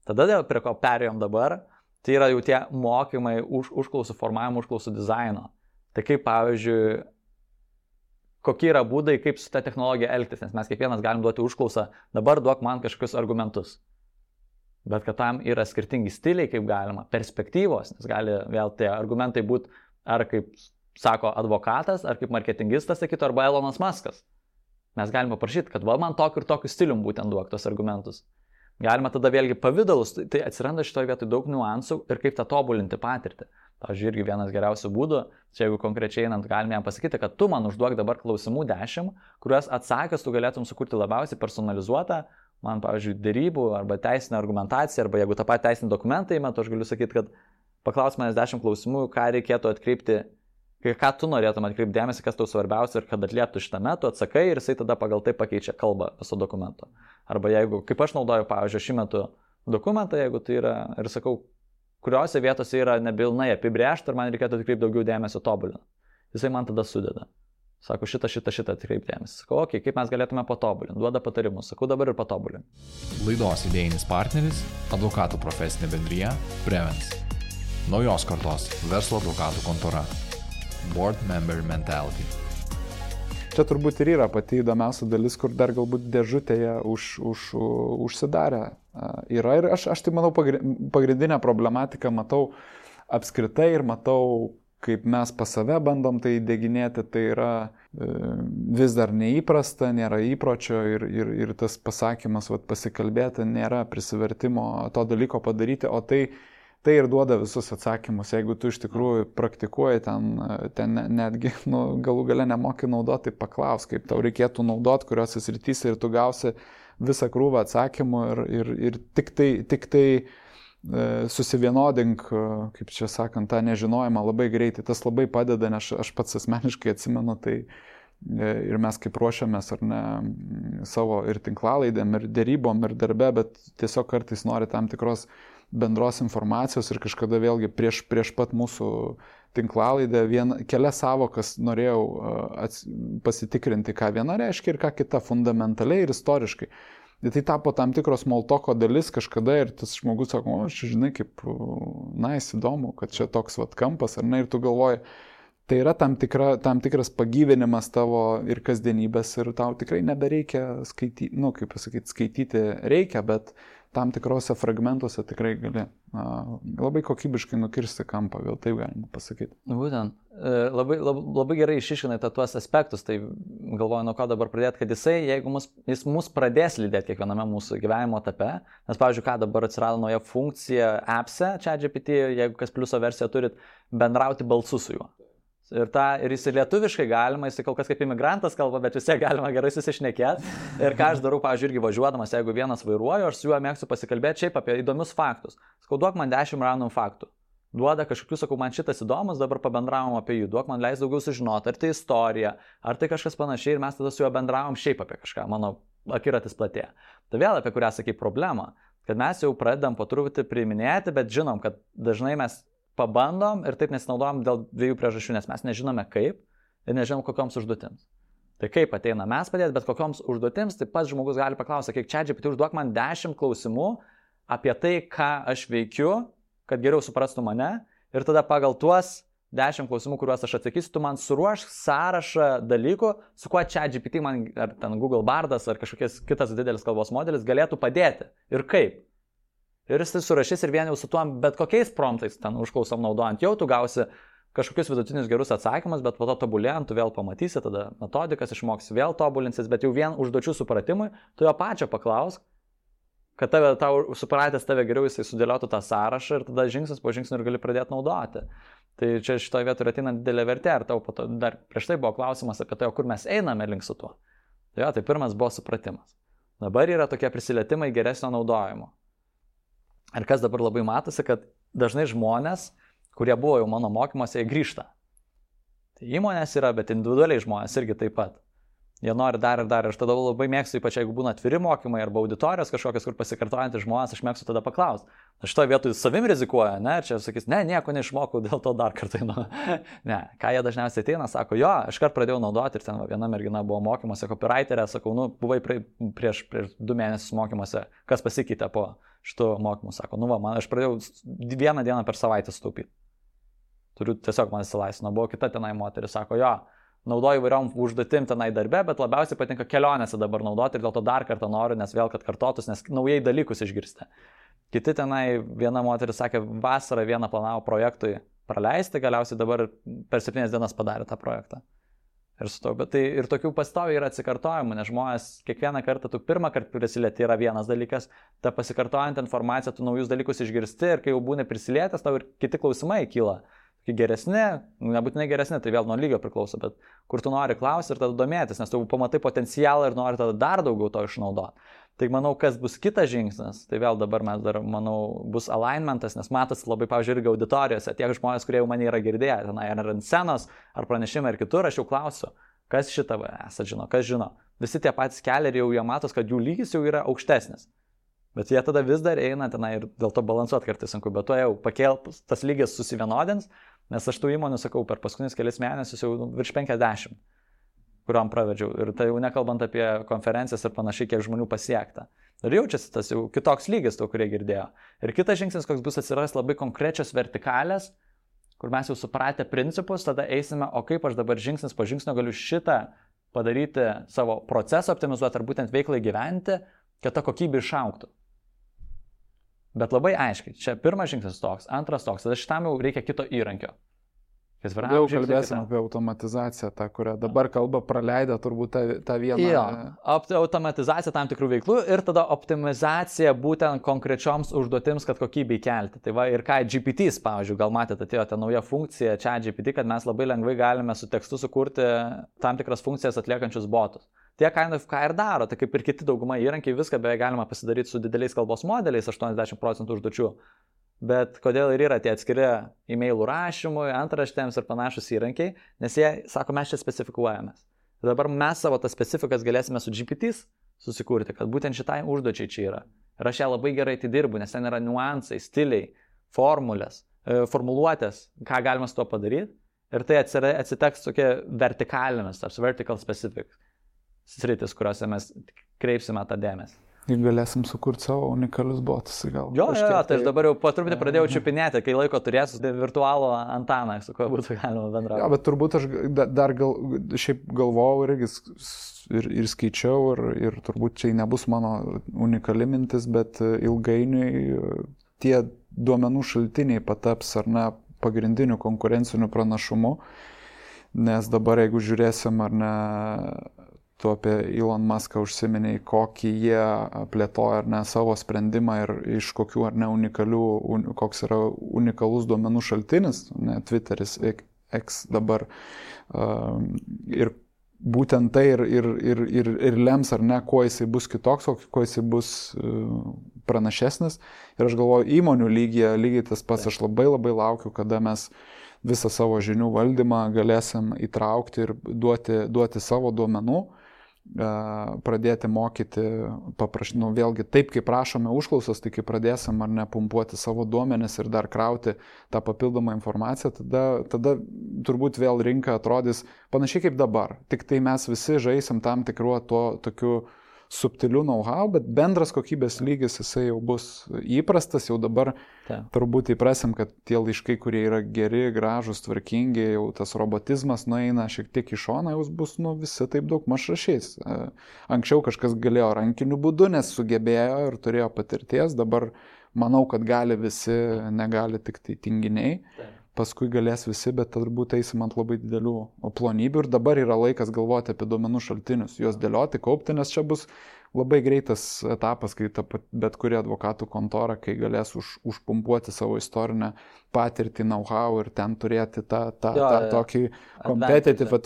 Tada prie ko perėjom dabar, tai yra jau tie mokymai užklausų formavimo, užklausų dizaino. Tai kaip, pavyzdžiui, kokie yra būdai, kaip su ta technologija elgtis, nes mes kiekvienas galim duoti užklausą, dabar duok man kažkokius argumentus. bet kad tam yra skirtingi stiliai, kaip galima, perspektyvos, nes gali vėl tie argumentai būti ar kaip sako advokatas, ar kaip marketingistas sakytų, arba Elonas Muskas. Mes galime paprašyti, kad man tokiu ir tokiu stilium būtent duok tos argumentus. Galima tada vėlgi pavydalus, tai atsiranda šitoje vietoje daug niuansų ir kaip tą tobulinti patirtį. Pavyzdžiui, irgi vienas geriausių būdų, čia jeigu konkrečiai einant, galime jam pasakyti, kad tu man užduok dabar klausimų 10, kuriuos atsakęs tu galėtum sukurti labiausiai personalizuotą, man, pavyzdžiui, dėrybų arba teisinę argumentaciją, arba jeigu tą patį teisinį dokumentą įmetu, aš galiu sakyti, kad paklaus manęs 10 klausimų, ką reikėtų atkreipti, ką tu norėtum atkreipti dėmesį, kas tau svarbiausia ir kad atlieptų šitame, tu atsakai ir jisai tada pagal tai pakeičia kalbą viso dokumento. Arba jeigu, kaip aš naudoju, pavyzdžiui, šį metu dokumentą, jeigu tai yra, ir sakau, kuriuose vietose yra nepilnai apibrėžta ir man reikėtų atkreipti daugiau dėmesio tobulinant. Jisai man tada sudeda. Sako, šitą atkreipti dėmesį. Sakau, okei, kaip mes galėtume patobulinti. Duoda patarimus. Sakau, dabar ir patobulinti. Laidos idėjinis partneris – advokatų profesinė bendrija Prevens. Naujos kartos verslo advokatų kontora. Board Member Mentality. Čia turbūt ir yra pati įdomiausia dalis, kur dar galbūt dėžutėje užsidarę yra. Ir aš tai manau pagrindinę problematiką matau apskritai ir matau, kaip mes pas save bandom tai įdėginėti, tai yra vis dar neįprasta, nėra įpročio ir tas pasakymas, pasikalbėti, nėra prisivertimo to dalyko padaryti, o tai ir duoda visus atsakymus. Jeigu tu iš tikrųjų praktikuoji ten netgi galų gale nemoki naudoti, tai paklaus, kaip tau reikėtų naudoti, kuriuose srityse ir tu gausi visą krūvą atsakymų ir tik tai susivienodink, kaip čia sakant, tą nežinojimą labai greitai. Tas labai padeda, nes aš pats asmeniškai atsimenu, tai ir mes kaip ruošiamės ar ne savo ir tinklalaidėm, ir dėrybom, ir darbe, bet tiesiog kartais nori tam tikros bendros informacijos ir kažkada vėlgi prieš pat mūsų tinklalaidę kelias savokas norėjau pasitikrinti, ką viena reiškia ir ką kita fundamentaliai ir istoriškai. Ir tai tapo tam tikros smalltalko dalis kažkada ir tas žmogus sako, aš žinai, kaip įdomu, kad čia toks kampas, ar ne, ir tu galvoji, tai yra tam tikras pagyvinimas tavo ir kasdienybės ir tau tikrai nebereikia skaityti, skaityti reikia, bet tam tikrose fragmentuose tikrai gali labai kokybiškai nukirsti kampą, gal taip galima pasakyti. Būtent. Labai gerai išiškinai tuos aspektus, tai galvoju, nuo ko dabar pradėti, kad jis mus pradės lydėti kiekviename mūsų gyvenimo etape, nes, pavyzdžiui, ką dabar atsirado nauja funkcija appse, ChatGPT, jeigu kas pliuso versiją turit, bendrauti balsu su juo. Ir jis lietuviškai galima, jis kol kas kaip imigrantas kalba, bet vis tiek galima gerai susišnekėti. Ir ką aš darau, pavyzdžiui, irgi važiuodamas, jeigu vienas vairuoju, aš su juo mėgstu pasikalbėti šiaip apie įdomius faktus. Sakau, duok man 10 random faktų. Duoda kažkokius, sakau, man šitas įdomus, dabar pabendravom apie jų, duok man leis daugiau sužinoti, ar tai istorija, ar tai kažkas panašiai, ir mes tada su juo bendravom šiaip apie kažką, mano akiratis platėja. Tai vėl apie kurią sakai problemą, kad mes jau pradedam po truputį priiminėti, bet žinom, kad dažnai mes pabandom ir taip nesinaudojam dėl dviejų priežasčių, nes mes nežinome kaip ir nežinom kokioms užduotims. Tai kaip ateina mes padėti, bet kokioms užduotims, tai pats žmogus gali paklausyti, kiek ChatGPT užduok man 10 klausimų apie tai, ką aš veikiu, kad geriau suprastų mane ir tada pagal tuos 10 klausimų, kuriuos aš atsakysiu, tu man suruošk sąrašą dalykų, su kuo ChatGPT man, ar ten Google Bardas, ar kažkokias kitas didelis kalbos modelis galėtų padėti ir kaip. Ir jis tai surašys ir vien jau su tuo, bet kokiais promptais ten užklausom naudojant, jau tu gausi kažkokius vidutinius gerus atsakymus, bet po to tobulėjant, tu vėl pamatysi, tada metodikas išmoksi, vėl tobulinsis, bet jau vien užduočių supratimui, tu jo pačio paklausk, kad tau supratęs tave geriau jisai sudėliotų tą sąrašą ir tada žingsnis po žingsnio ir gali pradėti naudoti. Tai čia šitoje vietoje ateina didelė vertė, ar tau dar prieš tai buvo klausimas apie tai, kur mes einame link su tuo. Tai pirmas buvo supratimas. Dabar yra tokie prisilietimai geresnio naudojimo. Ir kas dabar labai matosi, kad dažnai žmonės, kurie buvo jau mano mokymuose, jie grįžta. Tai įmonės yra, bet individualiai žmonės irgi taip pat. Jie nori dar ir dar. Ir aš tada labai mėgstu, ypač jeigu būna atviri mokymai arba auditorijos kažkokios, kur pasikartojantys žmonės, aš mėgstu tada paklausti. Aš šitoje vietoje savim rizikuoju, ne? Ir čia sakys, ne, nieko neišmokau, dėl to dar kartą einu. Ne, ką jie dažniausiai ateina, sako, jo, aš kart pradėjau naudoti ir ten viena mergina buvo mokymuose, copywriterė, sakau, buvai prieš 2 mėnesius mokymuose, kas pasikeitė po šitų mokymų, sako, aš pradėjau 1 dieną per savaitę sutaupyti. Turiu tiesiog man įsilaisvino, buvo kita tenai moteris, sako, jo, naudoju įvairiom užduotim tenai darbe, bet labiausiai patinka kelionėse dabar naudoti ir dėl to dar kartą noriu, nes vėl, kad kartotus, nes naujai dalykus išgirsti. Kiti tenai, viena moteris sakė, vasarą vieną planavo projektui praleisti, galiausiai dabar per 7 dienas padarė tą projektą. Ir su to, bet tai ir tokių pastoviai yra atsikartojimų, nes žmonės kiekvieną kartą, tu pirmą kartą prisilieti yra vienas dalykas, ta pasikartojant informacija, tu naujus dalykus išgirsti ir kai jau būni prisilietęs, tau ir kiti klausimai kyla. Geresni, nebūtinai geresni, tai vėl nuo lygio priklauso, bet kur tu nori klausti ir tada domėtis, nes tu pamatai potencialą ir nori tada dar daugiau to išnaudoti. Tai manau, kas bus kitas žingsnis, tai vėl dabar mes dar, manau, bus alignmentas, nes matosi labai, pavyzdžiui, irgi auditorijose, tiek žmonės, kurie jau mane yra girdėję, tenai ar ant scenos, ar pranešimai, ar kitur, aš jau klausiu, kas šitą esat žino, kas žino. Visi tie patys keliai jau jie matos, kad jų lygis jau yra aukštesnis. Bet jie tada vis dar eina tenai ir dėl to balansuoti kartais sunku, bet to jau tas lygis susivienodins, nes aš tų įmonių sakau per paskutinius kelias mėnesius jau virš 50, kuriuom pravedžiau. Ir tai jau nekalbant apie konferencijas ir panašiai, kiek žmonių pasiekta. Ir jaučiasi tas jau kitoks lygis, to, kurie girdėjo. Ir kitas žingsnis, koks bus atsiras labai konkrečios vertikalės, kur mes jau supratę principus, tada eisime, o kaip aš dabar žingsnis po žingsnio galiu šitą padaryti savo procesą, optimizuoti ar būtent veiklai gyventi, kad ta kokybė išaugtų. Bet labai aiškiai, čia pirmas žingsnis toks, antras toks, tada šitam jau reikia kito įrankio. Jau kalbėsim apie automatizaciją, tą, kurią dabar kalba praleidę turbūt tą vieną. Jo, automatizacija tam tikrų veiklų ir tada optimizacija būtent konkrečioms užduotims, kad kokybei kelti. Tai va ir ką GPTs, pavyzdžiui, gal matėte, atėjo ta nauja funkcija ChatGPT, kad mes labai lengvai galime su tekstu sukurti tam tikras funkcijas atliekančius botus. Tie ką ir daro, tai kaip ir kiti dauguma įrankiai, viską beveik galima pasidaryti su dideliais kalbos modeliais, 80% užduočių. Bet kodėl ir yra tie atskiri e-mailų rašymui, antraštėms ir panašus įrankiai, nes jie sako, mes čia specifikuojamės. Ir dabar mes savo tas specifikas galėsime su GPTs susikurti, kad būtent šitai užduočiai čia yra. Ir aš ją labai gerai tai dirbu, nes ten yra niuansai, stiliai, formulės, formuluotės, ką galima su to padaryti. Ir tai atsiteks tokie vertikalėmis, tarsi vertical specific sritis, kuriuose mes kreipsime tą dėmesį. Ir galėsim sukurti savo unikalius botus, gal. Jo, tai aš dabar jau po truputį pradėjau čiupinėti, kai laiko turėsiu virtualų Antaną, su kuo būtų galima bendrauti. Jo, bet turbūt aš dar šiaip galvojau ir skaičiau ir turbūt čia nebus mano unikali mintis, bet ilgainiui tie duomenų šaltiniai pataps ar ne pagrindiniu konkurenciniu pranašumu, nes dabar jeigu žiūrėsim ar ne, tu apie Elon Muską užsiminiai, kokį jie plėtoja ar ne savo sprendimą ir iš kokių ar ne koks yra unikalus duomenų šaltinis, ne, Twitteris, X dabar. Ir būtent tai ir lems ar ne, kuo jisai bus kitoks, kuo jisai bus pranašesnis. Ir aš galvoju, įmonių lygiai tas pats, aš labai laukiu, kada mes visą savo žinių valdymą galėsim įtraukti ir duoti savo duomenų, pradėti mokyti, vėlgi taip, kaip prašome užklausas, tai kai pradėsim ar ne pumpuoti savo duomenis ir dar krauti tą papildomą informaciją, tada turbūt vėl rinka atrodys panašiai kaip dabar. Tik tai mes visi žaisim tam tikruo tokiu subtilių know-how, bet bendras kokybės lygis jisai jau bus įprastas, jau dabar turbūt įprasim, kad tie laiškai, kurie yra geri, gražus, tvarkingi, jau tas robotizmas nueina šiek tiek į šoną, jau bus visi taip daug maž rašys. Anksčiau kažkas galėjo rankiniu būdu, nes sugebėjo ir turėjo patirties, dabar manau, kad gali visi, negali tik tai tinginiai. Paskui galės visi, bet turbūt eisim ant labai didelių plonybių ir dabar yra laikas galvoti apie duomenų šaltinius, juos dėlioti, kaupti, nes čia bus labai greitas etapas, kai bet kuri advokatų kontora, kai galės užpumpuoti savo istorinę patirtį, know-how ir ten turėti tą tokį competitive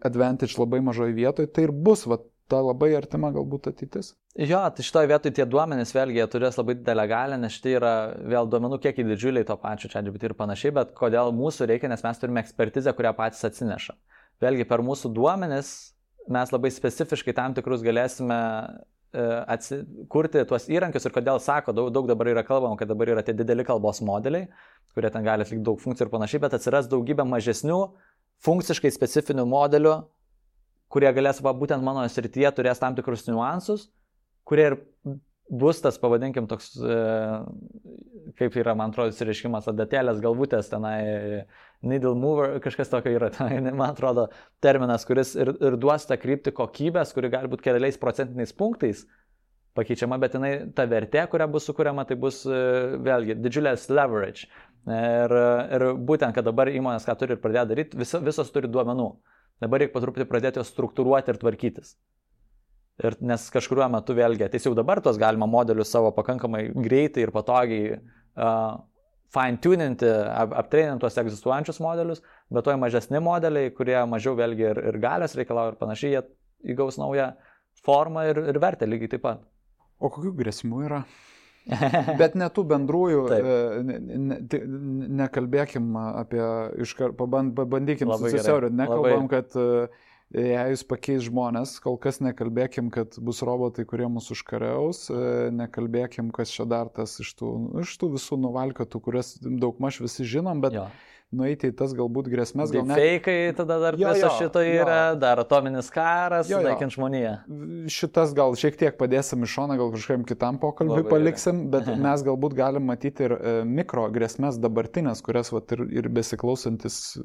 advantage labai mažoje vietoje, tai ir bus ta labai artima galbūt ateitis. Jo, tai šitoje vietoje tie duomenys vėlgi jie turės labai didelę galią, nes tai yra vėl duomenų kiekiai didžiuliai to pačio ChatGPT ir panašiai, bet kodėl mūsų reikia, nes mes turime ekspertizę, kurią patys atsineša. Vėlgi per mūsų duomenis mes labai specifiškai tam tikrus galėsime kurti tuos įrankius ir kodėl sako, daug dabar yra kalbama, kad dabar yra tie dideli kalbos modeliai, kurie ten gali atlikti daug funkcijų ir panašiai, bet atsiras daugybė mažesnių, funkciškai specifinių modelių, kurie galės, būtent mano srityje turės tam tikrus niuansus, kurie ir bus tas, pavadinkim, toks, kaip yra, man atrodo, išreiškimas, adatėlės galvutės, tenai needle mover, kažkas tokio yra, tenai, man atrodo, terminas, kuris ir duos tą kryptį kokybės, kuri gali būti keliais procentiniais punktais pakeičiama, bet ta vertė, kuria bus sukuriama, tai bus vėlgi didžiulės leverage. Ir būtent, kad dabar įmonės ką turi ir pradėjo daryti, visos turi duomenų. Dabar reikia patruputį pradėti juos struktūruoti ir tvarkytis. Nes kažkuriuo metu vėlgi, jau dabar tos galima modelius savo pakankamai greitai ir patogiai fine-tuninti, aptreininti tuos egzistuojančius modelius, bet to mažesni modeliai, kurie mažiau vėlgi ir galios reikalauja ir panašiai, jie įgaus naują formą ir vertę lygiai taip pat. O kokių grėsmų yra? Bet ne tų bendrųjų, nekalbėkim apie, pabandykim susisiaurinti, nekalbam, kad jei jūs pakeis žmonės, kol kas nekalbėkim, kad bus robotai, kurie mus užkariaus, nekalbėkim, kas čia dar tas iš tų visų nuvalkiotų, kurias daugmaž visi žinom, bet nueiti į tas galbūt grėsmės. Feikai tada dar viso šito yra, dar atominis karas, naikint žmoniją. Šitas gal šiek tiek padėsim iš šoną, gal kažkam kitam pokalbį paliksim, bet mes galbūt galim matyti ir mikro grėsmės dabartinės, kurias ir besiklausantis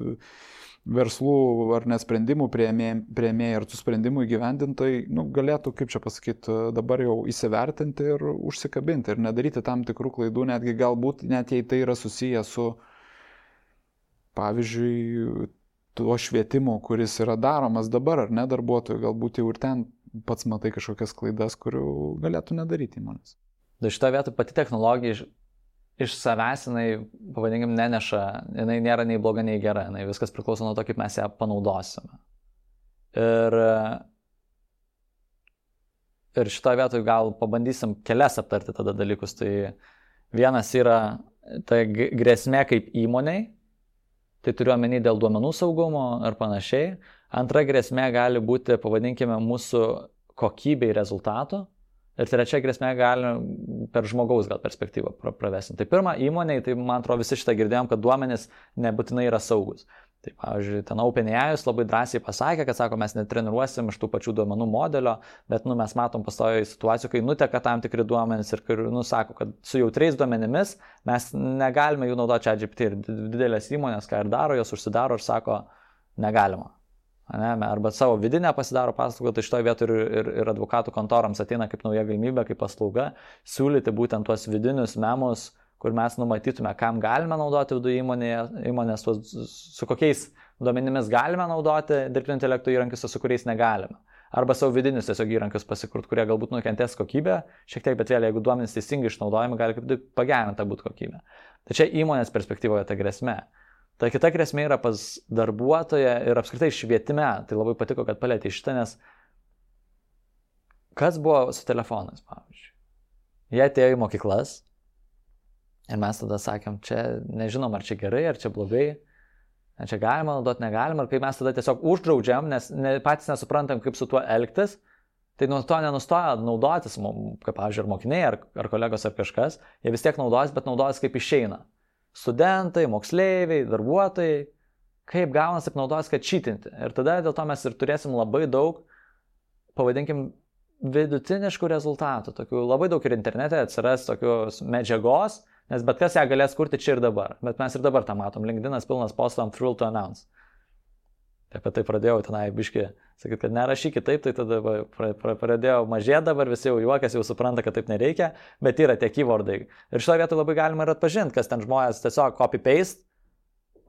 verslų ar nesprendimų priėmėjai ir tų sprendimų įgyvendintojai galėtų, kaip čia pasakyti, dabar jau įsivertinti ir užsikabinti ir nedaryti tam tikrų klaidų, netgi galbūt net jei tai yra susiję su pavyzdžiui, tuo švietimu, kuris yra daromas dabar, ar ne darbuotojų, galbūt jau ir ten pats matai kažkokias klaidas, kurių galėtų nedaryti įmonės. Šitą vietą pati technologija iš savęs, jinai, pavadinkim, neneša, jinai nėra nei bloga, nei gera, jinai viskas priklauso nuo to, kaip mes ją panaudosime. Ir šitą vietą gal pabandysim kelias aptarti tada dalykus. Tai vienas yra ta grėsmė kaip įmoniai, tai turiu omeny dėl duomenų saugumo ar panašiai. Antra grėsmė gali būti, pavadinkime, mūsų kokybei rezultato. Ir trečia grėsmė gali per žmogaus gal perspektyvą pravesinti. Tai pirma, įmoniai, tai man atrodo visi šitą girdėjom, kad duomenys nebūtinai yra saugus. Tai pavyzdžiui, ten OpenAI labai drąsiai pasakė, kad sako, mes netreniruosim iš tų pačių duomenų modelio, bet mes matom pastoviai situacijų, kai nuteka tam tikri duomenys ir sako, kad su jautriais duomenimis mes negalime jų naudoti ChatGPT ir didelės įmonės, ką ir daro, jos užsidaro ir sako, negalima. Arba savo vidinę pasidaro paslaugą, tai šitoje vietoje ir advokatų kontorams ateina kaip nauja galimybė, kaip paslauga, siūlyti būtent tuos vidinius memus, kur mes numatytume, kam galime naudoti viduje įmonės, su kokiais duomenimis galime naudoti dirbtinio intelekto įrankius, su kuriais negalime. Arba savo vidinius tiesiog įrankius pasikurt, kurie galbūt nukentės kokybę, šiek tiek, bet vėliau, jeigu duomenys teisingai išnaudojami, gali kaip tik pagerinta būti kokybė. Tai čia įmonės perspektyvoje ta grėsmė. Ta kita grėsmė yra pas darbuotoją ir apskritai švietime. Tai labai patiko, kad palėtė šitą, nes kas buvo su telefonais, pavyzdžiui. Jie atėjo į mokyklas ir mes tada sakėm, čia nežinom, ar čia gerai, ar čia blogai, ar čia galima naudoti, negalima, ir kai mes tada tiesiog uždraudžiam, nes patys nesuprantam, kaip su tuo elgtis, tai nuo to nenustoja naudotis, kaip pavyzdžiui, ar mokiniai, ar kolegos, ar kažkas, jie vis tiek naudojas, bet naudojas kaip išeina. Studentai, moksleiviai, darbuotojai, kaip gaunas, taip naudojas, kad čytinti. Ir tada dėl to mes ir turėsim labai daug, pavadinkim, vidutiniškų rezultatų. Tokių labai daug ir internete atsiras tokios medžiagos, nes bet kas ją galės kurti čia ir dabar. Bet mes ir dabar tą matom. LinkedInas pilnas postų ant Thrill to Announce. Apie tai pradėjau tenai biški sakyti, kad nerašykit taip, tai tada pradėjau mažėti dabar, visi jau juokas, jau supranta, kad taip nereikia, bet yra tie keywordai. Ir šitoje vietoje labai galima ir atpažinti, kas ten žmonės tiesiog copy-paste,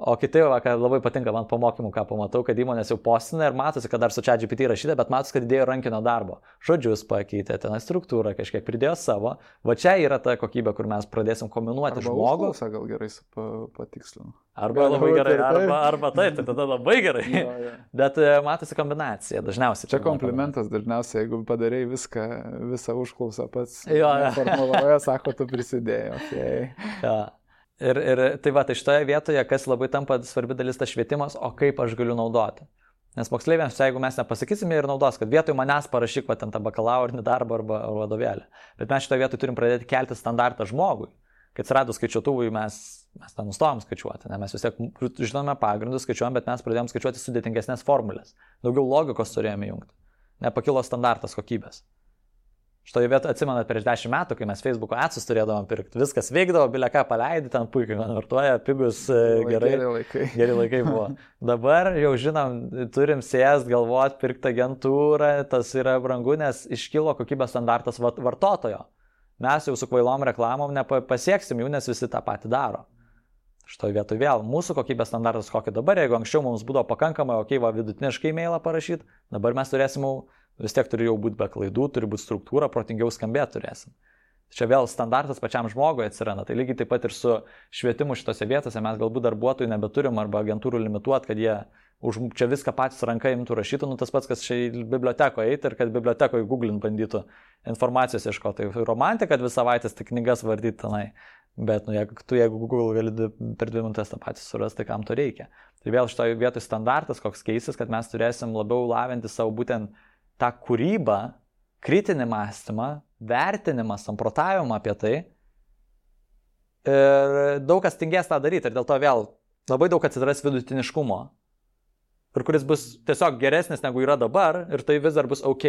o kiti, kad labai patinka man po mokymų, ką pamatau, kad įmonės jau postina ir matosi, kad dar su ChatGPT rašyta, bet matosi, kad įdėjo rankinio darbo. Žodžius pakeitė, ten struktūrą kažkiek pridėjo savo. Va čia yra ta kokybė, kur mes pradėsim kombinuoti žmogų. Arba gal gerai patikslinu. Arba labai gerai, arba taip, tai tada labai gerai. Bet matosi kombinacija dažniausiai. Čia komplimentas dažniausiai, jeigu padarei visą užklausą pats. Formuloje, sako, tu prisidėjai. Okay. Ir tai va, tai šitoje vietoje, kas labai tampa svarbi dalis, tas švietimas, o kaip aš galiu naudoti. Nes moksleiviams, jeigu mes nepasakysime ir naudos, kad vietoj manęs parašyk va, ten tą bakalaurinį darbą arba vadovėlį. Bet mes šitoje vietoje turim pradėti kelti standartą žmogui. Kai atsiradus skaičiuotuvui mes tą nustojom skaičiuoti. Ne? Mes vis tiek žinome pagrindus, skaičiuojam, bet mes pradėjom skaičiuoti sudėtingesnės formulės. Daugiau logikos turėjome jungti. Nepakilo standartas kokybės. Šitoje vietoje atsimenat prieš 10 metų, kai mes Facebook'o adsus turėdavom pirkti, viskas veikdavo, bilia ką paleidai, ten puikiai konvertuoja, pigus, gerai. Geri laikai buvo. Dabar jau žinom, turim sėst, galvot, pirkti agentūrą, tas yra brangu, nes iškilo kokybės standartas vartotojo. Mes jau su kvailom reklamom nepasieksim jų, nes visi tą patį daro. Šitoje vietoje vėl, mūsų kokybės standartas kokį dabar, jeigu anksčiau mums būdavo pakankamai, vidutiniškai e-mailą parašyti, dabar mes turėsim vis tiek turi jau būti be klaidų, turi būti struktūra, protingiau skambėti turėsim. Čia vėl standartas pačiam žmogui atsiranda. Tai lygiai taip pat ir su švietimu šitose vietose mes galbūt darbuotojų nebeturim arba agentūrų limituot, kad jie čia viską patys ranka imtų rašytų, tas pats, kas čia į bibliotekoje eitų ir kad bibliotekoje googlint bandytų informacijos ieškoti. Tai romantika, kad vis savaitės tik knygas vardyti tenai. Bet jeigu Google gali per 2 minutės tą patį surasti, tai kam to reikia. Tai vėl šitoje vietoje standartas koks keisis, kad mes turėsim labiau lavinti savo būtent tą kūrybą, kritinį mąstymą, vertinimą, samprotavimą apie tai. Ir daug kas tingės tą daryti ir dėl to vėl labai daug atsiras vidutiniškumo. Ir kuris bus tiesiog geresnis negu yra dabar ir tai vis dar bus ok.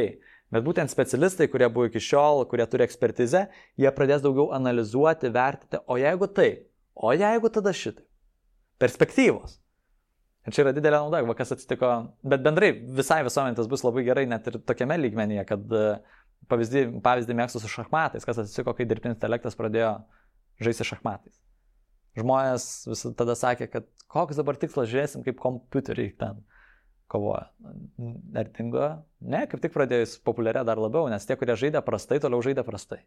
Bet būtent specialistai, kurie buvo iki šiol, kurie turi ekspertizę, jie pradės daugiau analizuoti, vertinti, o jeigu tai, o jeigu tada šitai. Perspektyvos. Ir čia yra didelė nauda, kas atsitiko, bet bendrai visai visuomenė tas bus labai gerai net ir tokiame lygmenyje, kad pavyzdį mėgstu su šachmatais, kas atsitiko, kai dirbtinis intelektas pradėjo žaisti šachmatais. Žmonės vis tada sakė, kad koks dabar tikslas, žiūrėsim, kaip kompiuteriai ten kovoja. Ar dingo? Ne, kaip tik pradėjus populiarė dar labiau, nes tie, kurie žaidė prastai, toliau žaidė prastai.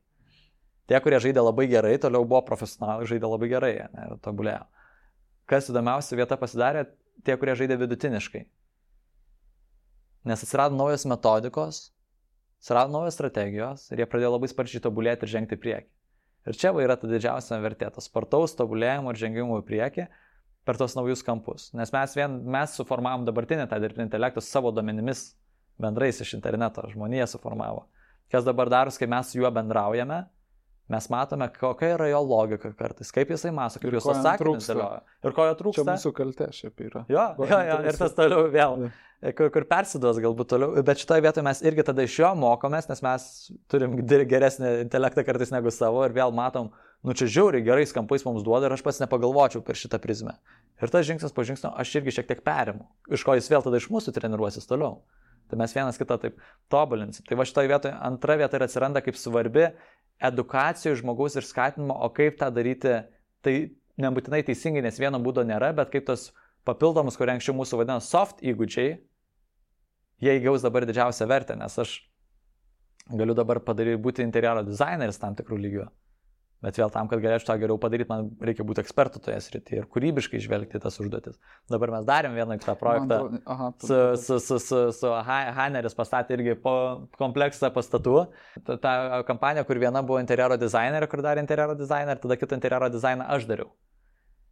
Tie, kurie žaidė labai gerai, toliau buvo profesionalai, žaidė labai gerai ir tobulėjo. Kas įdomiausia vieta pasidarė, tie, kurie žaidė vidutiniškai. Nes atsirado naujos metodikos, atsirado naujos strategijos ir jie pradėjo labai sparčiai tobulėti ir žengti į priekį. Ir čia yra ta didžiausia vertė, tas spartaus tobulėjimo ir žengimo į priekį per tos naujus kampus. Nes mes suformavom dabartinį tą dirbtinį intelektą savo duomenimis bendrais iš interneto, žmonija suformavo. Kas dabar daros, kai mes su juo bendraujame, mes matome, kokia yra jo logika kartais, kaip jisai mąsto, kaip jos atsakymus dėlioja. Ir ko jo trūksta. Čia mūsų kaltė šiaip yra. Jo, ir tas toliau vėl, kur persiduos galbūt toliau. Bet šitoje vietoje mes irgi tada iš jo mokomės, nes mes turim geresnį intelektą kartais negu savo ir vėl matom, čia žiauriai gerais kampais mums duoda ir aš pats nepagalvočiau per šitą prizmę. Ir tas žingsnis po žingsnio aš irgi šiek tiek perimu, iš ko jis vėl tada iš mūsų treniruosis toliau. Tai mes vienas kitą taip tobulinsim. Tai va šitoje vietoje antra vieta ir atsiranda kaip svarbi edukacijų žmogaus ir skatinimo, o kaip tą daryti, tai nebūtinai teisingai, nes vieno būdo nėra, bet kaip tos papildomus, kurie anksčiau mūsų vadina soft įgūdžiai, jie įgaus dabar didžiausią vertę, nes aš galiu dabar būti interjero dizaineris tam tikrų lygių. Bet vėl tam, kad galėčiau tą geriau padaryti, man reikia būti ekspertu toje srityje ir kūrybiškai žvelgti tas užduotis. Dabar mes darėm vieną kitą projektą su Haneris pastatė irgi po kompleksą pastatų. Ta kampanija, kur viena buvo interjero dizainerė, kur darė interjero dizainerį, tada kitą interjero dizainą aš dariau.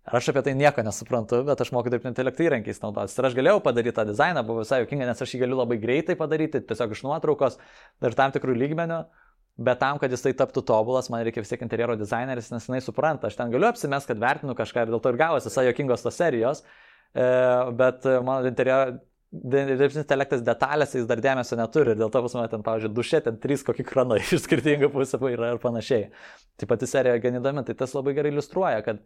Ir aš apie tai nieko nesuprantu, bet aš moku dirbtinio intelekto įrankiais naudotis. Ir aš galėjau padaryti tą dizainą, buvo visai juokinga, nes aš jį galiu labai greitai padaryti, tiesiog iš nuotraukos ir tam tikrų lygmenių. Bet tam, kad jis tai taptų tobulas, man reikia vis tiek interjero dizaineris, nes jinai supranta. Aš ten galiu apsimest, kad vertinu kažką ir dėl to ir gavosi visai juokingos tos serijos. Bet mano dirbtinis intelektas detalėse jis dar dėmesio neturi. Ir dėl to pas mane ten, pavyzdžiui, duše, ten 3 kokį kranai iš skirtingų pusių yra ir panašiai. Tai pati serija gan įdomi, tai tas labai gerai iliustruoja, kad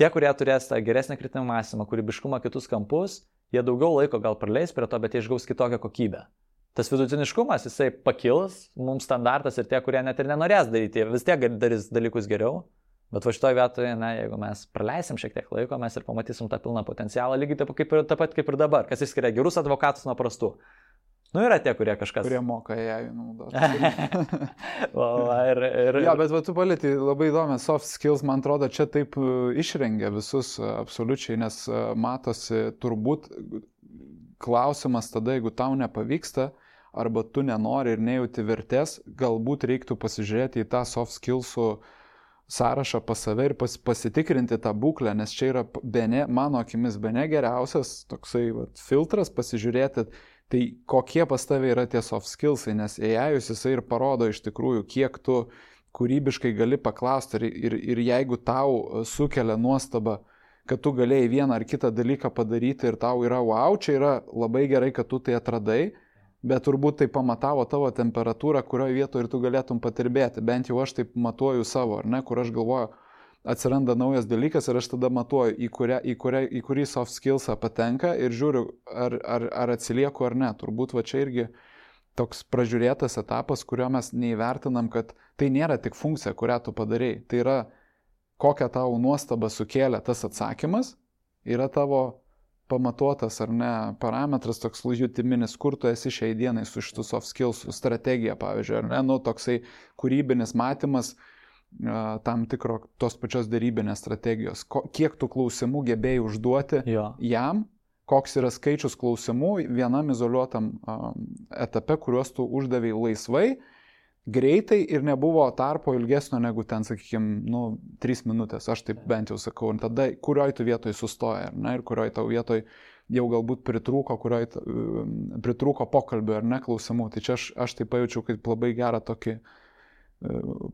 tie, kurie turės tą geresnį kritinį mąstymą, kūrybiškumą, kitus kampus, jie daugiau laiko gal praleis prie to, bet jie išgaus kitokią kokybę. Tas vidutiniškumas, jisai pakils, mums standartas ir tie, kurie net ir nenorės daryti, vis tiek darys dalykus geriau, bet va šitoje vietoje, jeigu mes praleisim šiek tiek laiko, mes ir pamatysim tą pilną potencialą, lygiai taip pat kaip ir dabar, kas išskiria gerus advokatus nuo prastų. Yra tie, kurie kažkas... Kurie moka AI naudoti. Ja, bet tu palėti labai įdomi soft skills, man atrodo, čia taip išrengia visus absoliučiai, nes matosi turbūt klausimas tada, jeigu tau nepavyksta, arba tu nenori ir nejauti vertės, galbūt reiktų pasižiūrėti į tą soft skillsų sąrašą pas save ir pasitikrinti tą būklę, nes čia yra mano akimis bene geriausias toksai filtras pasižiūrėti, tai kokie pas tave yra tie soft skillsai, nes AI jisai ir parodo iš tikrųjų, kiek tu kūrybiškai gali paklausti ir jeigu tau sukelia nuostabą, kad tu galėjai vieną ar kitą dalyką padaryti ir tau yra wow, čia yra labai gerai, kad tu tai atradai, bet turbūt tai pamatavo tavo temperatūrą, kurioje vietoje ir tu galėtum patirbėti. Bent jau aš taip matuoju savo, ar ne, kur aš galvoju, atsiranda naujas dalykas ir aš tada matuoju, į kurį soft skillsą patenka ir žiūriu, ar atsilieku ar ne. Turbūt va čia irgi toks pražiūrėtas etapas, kurio mes neįvertinam, kad tai nėra tik funkcija, kurią tu padarei. Tai yra, kokią tau nuostabą sukėlė tas atsakymas, yra tavo pamatuotas ar ne parametras, toks jutiminis, kur tu esi šiai dienai su šitų soft skills, strategija, pavyzdžiui, ar ne, nu, toksai kūrybinis matymas tam tikro tos pačios darybinės strategijos. Kiek tų klausimų gebėjai užduoti jam, koks yra skaičius klausimų vienam izoliuotam etape, kuriuos tu uždavei laisvai, greitai ir nebuvo tarpo ilgesnio negu ten, sakykime, 3 minutės, aš taip bent jau sakau, ir tada kurioj tu vietoj sustoja, ne, ir kurioj tau vietoj jau galbūt pritrūko pokalbio ar ne klausimų. Tai čia aš tai pajaučiau kaip labai gerą tokį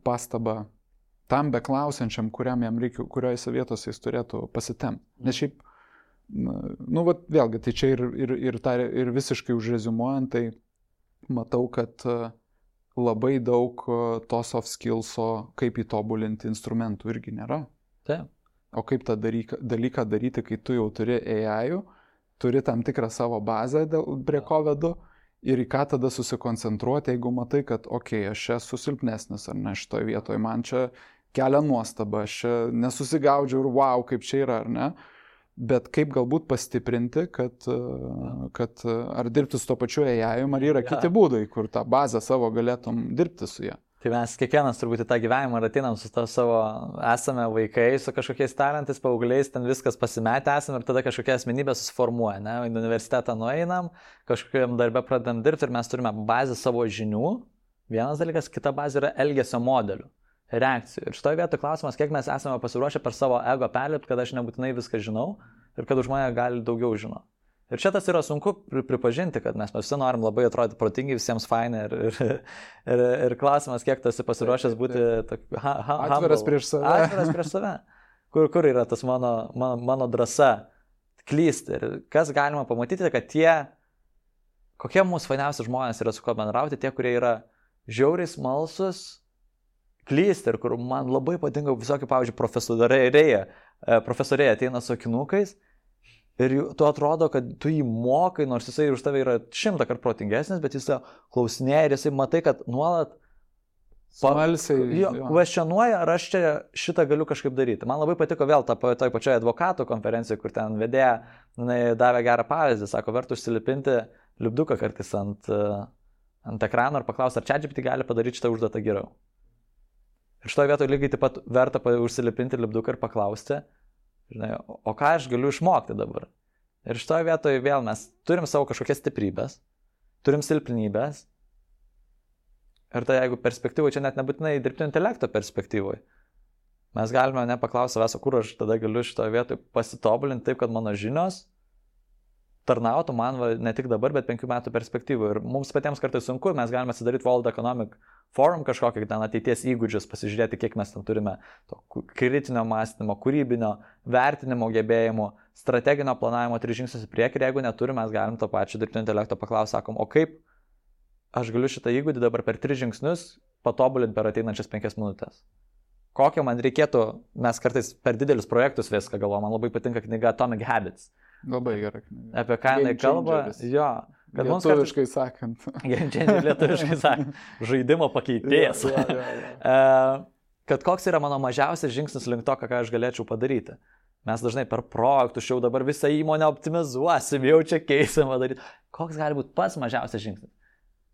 pastabą tam beklausiančiam, kuriam jam reikia, kuriojose vietose jis turėtų pasitemti. Nes šiaip, vėlgi, tai čia ir visiškai užreziumuojant, tai matau, kad labai daug to soft skillso, kaip įtobulinti instrumentų irgi nėra. Taip. O kaip tą dalyką daryti, kai tu jau turi AI, turi tam tikrą savo bazę, prie ko vedu, ir į ką tada susikoncentruoti, jeigu matai, kad aš čia esu silpnesnis ar ne šitoje vietoje, man čia kelia nuostabą, aš čia nesusigaudžiu ir wow, kaip čia yra, ar ne? Bet kaip galbūt pastiprinti, kad ar dirbti su to pačiu AI, ar yra kiti būdai, kur tą bazę savo galėtum dirbti su ją. Tai mes kiekvienas turbūt į tą gyvenimą atinam su to savo esame vaikai, su kažkokiais talentais, paaugliais, ten viskas pasimetę esame ir tada kažkokia asmenybė susiformuoja. Ne? Į universitetą nueinam, kažkokiam darbę pradedam dirbti ir mes turime bazę savo žinių. Vienas dalykas, kita bazė yra elgesio modelių, reakcijų. Ir šitoje vietoje klausimas, kiek mes esame pasiruošę per savo ego perlipti, kad aš nebūtinai viską žinau ir kad už mane gali daugiau žinoti. Ir čia tas yra sunku pripažinti, kad mes visi norim labai atrodyti protingi, visiems fainai ir klausimas, kiek tu esi pasiruošęs būti atviras prieš save. Atviras prieš save. Kur yra tas mano drąsa klysti. Ir kas galima pamatyti, kad kokie mūsų fainiausi žmonės yra su kuo bendrauti, tie, kurie yra žiauriai smalsus, klysti ir kur man labai patinka visokie, pavyzdžiui, profesoriai ateina su akinukais ir tu atrodo, kad tu jį mokai, nors jisai už tave yra 100 kartų protingesnis, bet jis klausinėja ir jisai matai, kad nuolat kvestionuoja, ar aš čia šitą galiu kažkaip daryti. Man labai patiko vėl toj pačioje advokatų konferencijoje, kur ten vedėja davė gerą pavyzdį, sako, verta užsilipinti lipduką kartais ant ekrano ir paklausti, ar ChatGPT gali padaryti šitą užduotą geriau. Ir šitoje vietoje lygiai taip pat verta užsilipinti lipduką ir paklausti, žinai, o ką aš galiu išmokti dabar. Ir šitoje vietoje vėl mes turim savo kažkokias stiprybės, turim silpnybės. Ir tai jeigu perspektyvoje, čia net nebūtinai dirbtinio intelekto perspektyvoje, mes galime nepaklausti savęs, kur aš tada galiu šitoje vietoje pasitobulinti taip, kad mano žinios tarnautų man ne tik dabar, bet 5 metų perspektyvoje. Ir mums patiems kartais sunku, mes galime atsidaryti World Economic Forum kažkokį ten ateities įgūdžius, pasižiūrėti, kiek mes ten turime to kritinio mąstymo, kūrybinio, vertinimo gebėjimų, strateginio planavimo 3 žingsnius į priekį. Ir jeigu neturime, mes galim to pačio dirbtinio intelekto paklausti, sakom, o kaip aš galiu šitą įgūdį dabar per 3 žingsnius patobulinti per ateinančias 5 minutės. Kokio man reikėtų, mes kartais per didelius projektus viską galvojame, man labai patinka knyga Atomic Habits. Labai gerai. Apie ką jinai kalba, jo. Lietuviškai sakant. Lietuviškai sakant. Žaidimo pakeitėjas. Kad koks yra mano mažiausias žingsnis link to, ką aš galėčiau padaryti. Mes dažnai per projektus jau dabar visą įmonę optimizuosim, jau čia keisim padaryti. Koks gali būti pats mažiausias žingsnis?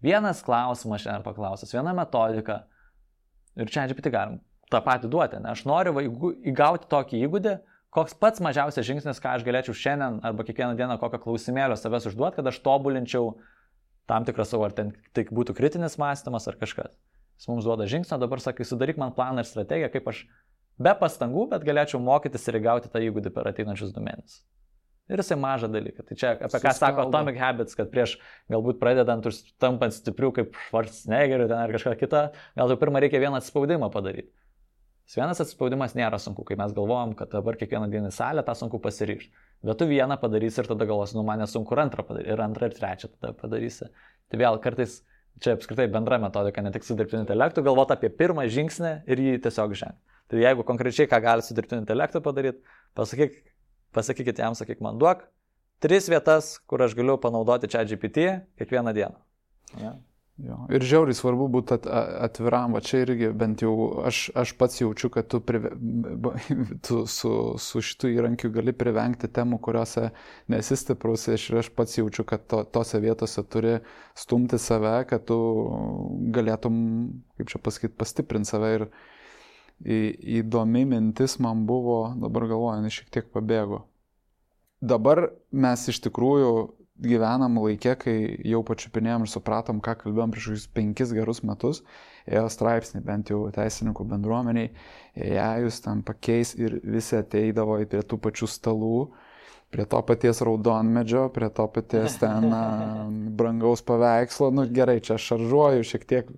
Vienas klausimas šiandien paklausęs, viena metodika. Ir čia GPT galim tą patį duoti. Ne? Aš noriu įgauti tokį įgūdį, koks pats mažiausias žingsnis, ką aš galėčiau šiandien arba kiekvieną dieną kokią klausimėlio savęs užduoti, kad aš tobulinčiau tam tikrą savo, ar ten tai būtų kritinis mąstymas ar kažkas. Jis mums duoda žingsnį, dabar sakai, sudaryk man planą ir strategiją, kaip aš be pastangų, bet galėčiau mokytis ir įgauti tą įgūdį per ateinančius 2 mėnesius. Ir jisai mažą dalyką. Tai čia apie ką sako Atomic Habits, kad prieš galbūt pradedant ir tampant stipriu kaip Schwarzeneggeriu ten ar kažką kitą, gal jau pirmą reikia vieną atspaudimą padaryti. Vienas atsispaudimas nėra sunku, kai mes galvojam, kad dabar kiekvieną dieną į salę tą sunku pasiryžti. Bet tu vieną padarysi ir tada galvosi, man nesunku ir antrą padaryti, ir antrą ir trečią tada padarysi. Tai vėl kartais čia apskritai bendra metodika, ne tik su dirbtiniu intelektu, galvoti apie pirmą žingsnį ir jį tiesiog žengti. Tai jeigu konkrečiai ką gali su dirbtiniu intelektu padaryti, pasakykit jam, sakyk man, duok 3 vietas, kur aš galiu panaudoti ChatGPT kiekvieną dieną. Ja. Jo. Ir žiauriai svarbu būti atviram, va čia irgi bent jau aš pats jaučiu, kad tu su šitų įrankiu gali privengti temų, kuriuose nesi stiprus, ir aš pats jaučiu, kad tose vietose turi stumti save, kad tu galėtum, kaip čia pasakyti, pastiprinti save. Ir įdomi mintis man buvo, dabar galvoju, šiek tiek pabėgo. Dabar mes iš tikrųjų gyvenam laikė, kai jau pačiupinėjom ir supratom, ką kalbėjom prieš 5 gerus metus, ėjo straipsnį, bent jau teisininkų bendruomeniai, jūs ten pakeis ir visi ateidavo prie tų pačių stalų, prie to paties raudonmedžio, prie to paties ten brangaus paveikslo, gerai, čia šaržuoju šiek tiek,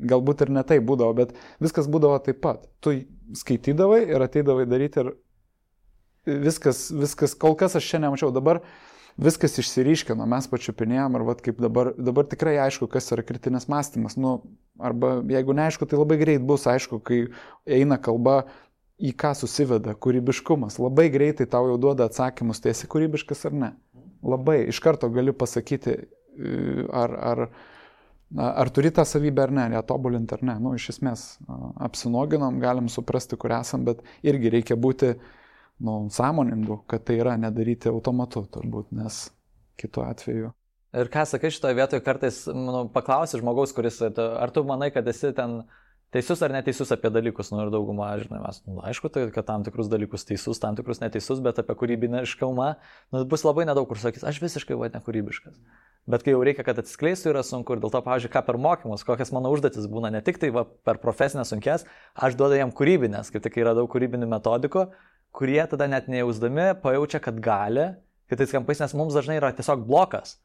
galbūt ir ne tai būdavo, bet viskas būdavo taip pat. Tu skaitydavai ir ateidavai daryti ir viskas, kol kas aš čia nemačiau, dabar viskas išsiryškino, mes pačiupinėjom ir kaip dabar tikrai aišku, kas yra kritinis mąstymas. Arba jeigu neaišku, tai labai greit bus aišku, kai eina kalba į ką susiveda kūrybiškumas. Labai greitai tau jau duoda atsakymus, tai esi kūrybiškas ar ne. Labai iš karto gali pasakyti, ar turi tą savybę ar ne, ją tobulinti ar ne. Iš esmės apsinoginom, galim suprasti, kur esam, bet irgi reikia būti sąmoningu, kad tai yra nedaryti automatu turbūt, nes kitu atveju. Ir ką sakai šitoje vietoje, kartais paklausi žmogaus, kuris, ar tu manai, kad esi ten teisus ar neteisus apie dalykus, ir daugumą, žinai, mes, aišku, tai, kad tam tikrus dalykus teisus, tam tikrus neteisus, bet apie kūrybiniškumą, bus labai nedaug, kur sakys, aš visiškai nekūrybiškas. Bet kai jau reikia, kad atsiskleistų, yra sunku ir dėl to, pavyzdžiui, ką per mokymus, kokias mano užduotis būna, ne tik tai per profesinės sunkes, aš duodu jam kūrybinės, kaip tik yra daug kūrybinių metodikų, kurie tada net nejausdami pajaučia, kad gali, kitais kampais, nes mums dažnai yra tiesiog blokas.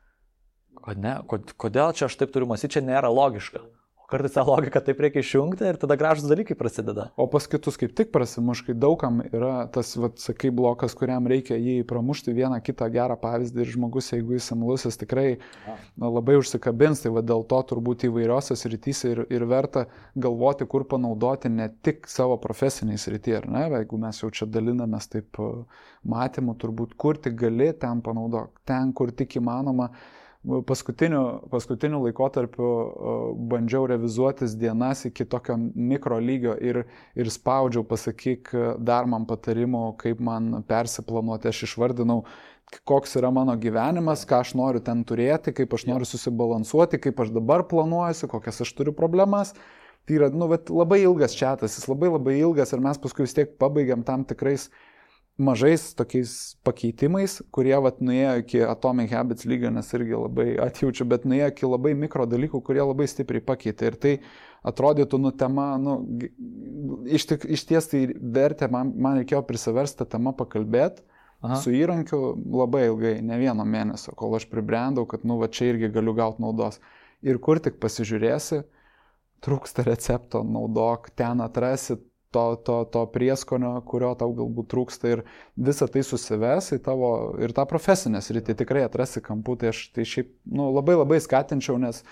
Kodėl čia aš taip turiu mąstyti, čia nėra logiška. O kartais tą logiką taip reikia išjungti ir tada gražus dalykai prasideda. O pas kitus kaip tik prasimuš, kai daugam yra tas, sakai, blokas, kuriam reikia jį pramušti vieną kitą gerą pavyzdį ir žmogus, jeigu jis imlusis, tikrai labai užsikabins, tai dėl to turbūt įvairiose srityse ir verta galvoti, kur panaudoti ne tik savo profesiniai srity, ar ne, jeigu mes jau čia dalinamės taip matymu, turbūt kur tik gali, ten panaudok, ten, kur tik įmanoma. Paskutiniu laikotarpiu bandžiau revizuotis dienas iki tokio mikro lygio ir spaudžiau, pasakyk dar man patarimų, kaip man persiplanuoti. Aš išvardinau, koks yra mano gyvenimas, ką aš noriu ten turėti, kaip aš noriu susibalansuoti, kaip aš dabar planuojuosi, kokias aš turiu problemas. Tai yra labai ilgas čiatas, jis labai ilgas ir mes paskui vis tiek pabaigiam tam tikrais mažais tokiais pakeitimais, kurie nuėjo iki Atomic Habits lygio, nes irgi labai atjaučiu, bet nuėjo iki labai mikro dalykų, kurie labai stipriai pakeitė. Ir tai atrodytų, tema, iš ties tai vertė, man reikėjo prisiversti tą temą pakalbėti su įrankiu labai ilgai, ne vieno mėnesio, kol aš pribrendau, kad čia irgi galiu gauti naudos. Ir kur tik pasižiūrėsi, trūksta recepto, naudok, ten atrasi to prieskonio, kurio tau galbūt trūksta ir visą tai susives į tavo ir tą profesinę sritį tikrai atrasi kampų, tai aš tai šiaip labai skatinčiau, nes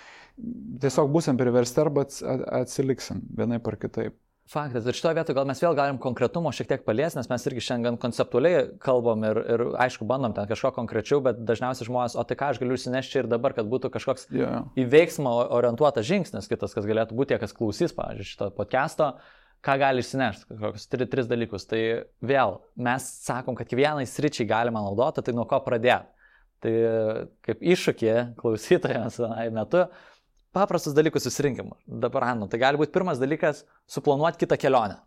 tiesiog būsim priversti arba atsiliksim vienaip ar kitaip. Faktas, ir šitoje vietoje gal mes vėl galim konkretumo šiek tiek paliesti, nes mes irgi šiandien konceptualiai kalbam ir aišku bandom ten kažko konkrečiau, bet dažniausiai žmonės, o tai ką aš galiu išsinešti ir dabar, kad būtų kažkoks į veiksmą orientuotas žingsnis kitas, kas galėtų būti tie, kas klausys, pavyzdžiui, šito podcast'o. Ką gali išsinešti, kokius 3 dalykus. Tai vėl, mes sakom, kad kiekvienai sričiai galima naudoti, tai nuo ko pradėti. Tai kaip iššūkį klausytojams metu, paprastus dalykus susirinkim. Dabar, tai gali būti pirmas dalykas suplanuoti kitą kelionę,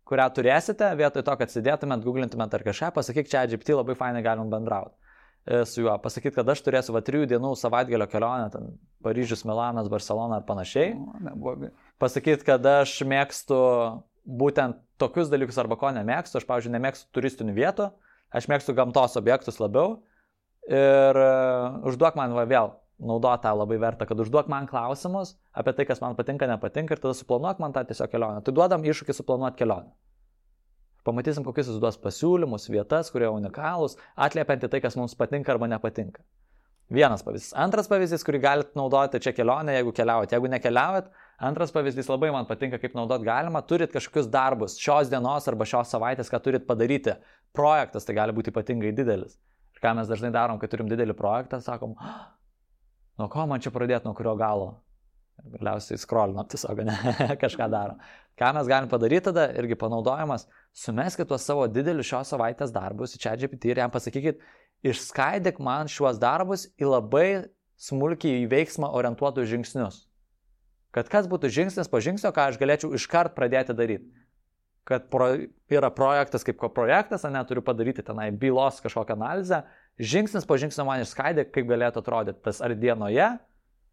kurią turėsite, vietoj to, kad sėdėtumėt, googlintumėt ar kažką, pasakyk, čia GPT labai fainai galim bendrauti su juo. Pasakyti, kad aš turėsiu 3 dienų savaitgalio kelionę, ten Paryžius, Milanas, Barcelona ar panašiai. Neblogai. Pasakyti, kad aš mėgstu būtent tokius dalykus arba ko nemėgstu. Aš, pavyzdžiui, nemėgstu turistinių vietų, aš mėgstu gamtos objektus labiau. Ir užduok man vėl, naudot tą labai vertą, kad užduok man klausimus apie tai, kas man patinka, nepatinka ir tada suplanuok man tą tiesiog kelionę. Tai duodam iššūkį suplanuoti kelionę. Pamatysim, kokius jis duos pasiūlymus, vietas, kurie unikalūs, atliepianti tai, kas mums patinka arba nepatinka. Vienas pavyzdys. Antras pavyzdys, kurį galite naudoti čia kelionę, jeigu keliaujat. Jeigu nekeliaujat, antras pavyzdys labai man patinka, kaip naudot galima. Turit kažkokius darbus šios dienos arba šios savaitės, ką turit padaryti. Projektas, tai gali būti ypatingai didelis. Ir ką mes dažnai darom, kai turim didelį projektą, sakom, nuo ko man čia pradėti, nuo kurio galo. Ir galiausiai scrollinam tiesiog, ne, kažką darom. Ką mes galim padaryti tada, irgi panaudojimas, sumeskit tuos savo didelius šios savaitės darbus į ChatGPT ir jam pasakykit, išskaidyk man šiuos darbus į labai smulkiai į veiksmą orientuotus žingsnius. Kad kas būtų žingsnis po žingsnio, ką aš galėčiau iškart pradėti daryti. Kad yra projektas kaip projektas, turiu padaryti tenai bylos kažkokią analizę, žingsnis po žingsnio man išskaidyk, kaip galėtų atrodyti tas ar dienoje,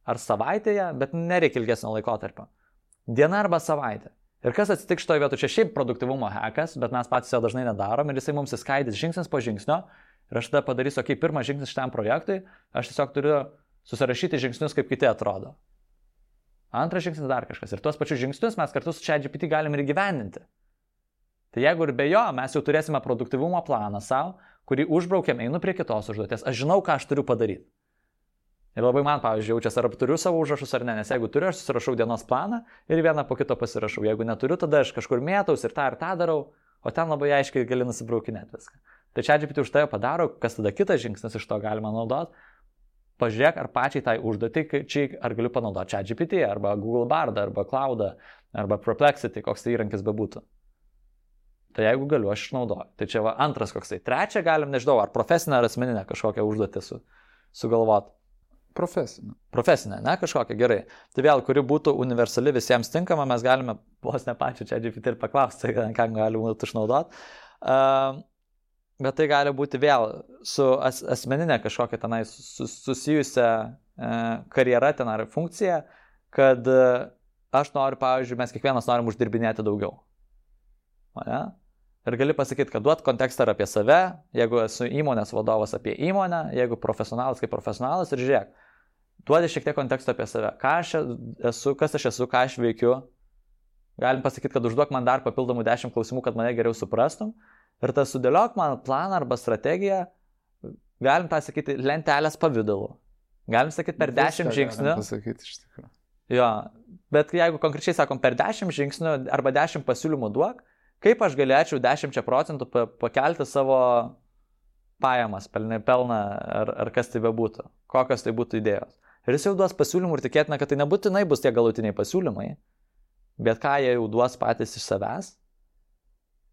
ar savaitėje, bet nereikia ilgesnio laikotarpio. Diena arba savaitė. Ir kas atsitiks šitoje vietoje, čia šiaip produktyvumo hackas, bet mes patys jo dažnai nedarom ir jisai mums įskaidys žingsnis po žingsnio. Ir aš tada padarysiu, okei, pirmas žingsnis šitam projektui, aš tiesiog turiu susirašyti žingsnius, kaip kiti atrodo. Antras žingsnis dar kažkas. Ir tuos pačius žingsnius mes kartu su ChatGPT galim ir įgyvendinti. Tai jeigu ir be jo, mes jau turėsime produktyvumo planą savo, kurį užbraukiam, einu prie kitos užduoties. Aš žinau, ką aš turiu padaryti. Ir labai man, pavyzdžiui, jaučiasi, ar turiu savo užrašus ar ne, nes jeigu turiu, aš susirašau dienos planą ir vieną po kito pasirašau. Jeigu neturiu, tada aš kažkur mėtaus ir tą darau, o ten labai aiškiai gali nusibraukinėti viską. Tai ChatGPT už tai padaro, kas tada kitas žingsnis iš to galima naudoti. Pažiūrėk, ar pačiai tai užduotį, ar galiu panaudoti ChatGPT, arba Google Bardą, arba Cloudą, arba Perplexity, koks tai įrankis bebūtų. Tai jeigu galiu, aš išnaudoju. Tai čia va antras koksai. Trečia galim, nežinau, ar profesinę ar asmeninę kažkokią užduotį sugalvoti. Profesinė, ne kažkokia, gerai. Tai vėl, kuri būtų universali visiems tinkama, mes galime vos ne pačiu ChatGPT ir paklausti, ką galima būtų išnaudoti. Bet tai gali būti vėl su asmeninė kažkokia tenai susijusia karjera ten ar funkcija, kad aš noriu, pavyzdžiui, mes kiekvienas norim uždirbinėti daugiau. Ne? Ir gali pasakyti, kad duot kontekstą apie save, jeigu esu įmonės vadovas apie įmonę, jeigu profesionalas kaip profesionalas ir žiūrėk, duodi šiek tiek konteksto apie save, ką aš esu, kas aš esu, ką aš veikiu. Galim pasakyti, kad užduok man dar papildomų 10 klausimų, kad mane geriau suprastum. Ir tas sudėliok man planą arba strategiją, galim tą sakyti lentelės pavidalu. Galim sakyti per 10 žingsnių. Galim pasakyti iš tikrųjų. Jo, bet jeigu konkrečiai sakom per 10 žingsnių arba 10 pasiūlymų duok, kaip aš galėčiau 10% pakelti savo pajamas, pelną ar kas tai bebūtų, kokios tai būtų idėjos. Ir jis jau duos pasiūlymų ir tikėtina, kad tai nebūtinai bus tie galutiniai pasiūlymai, bet ką jie jau duos patys iš savęs,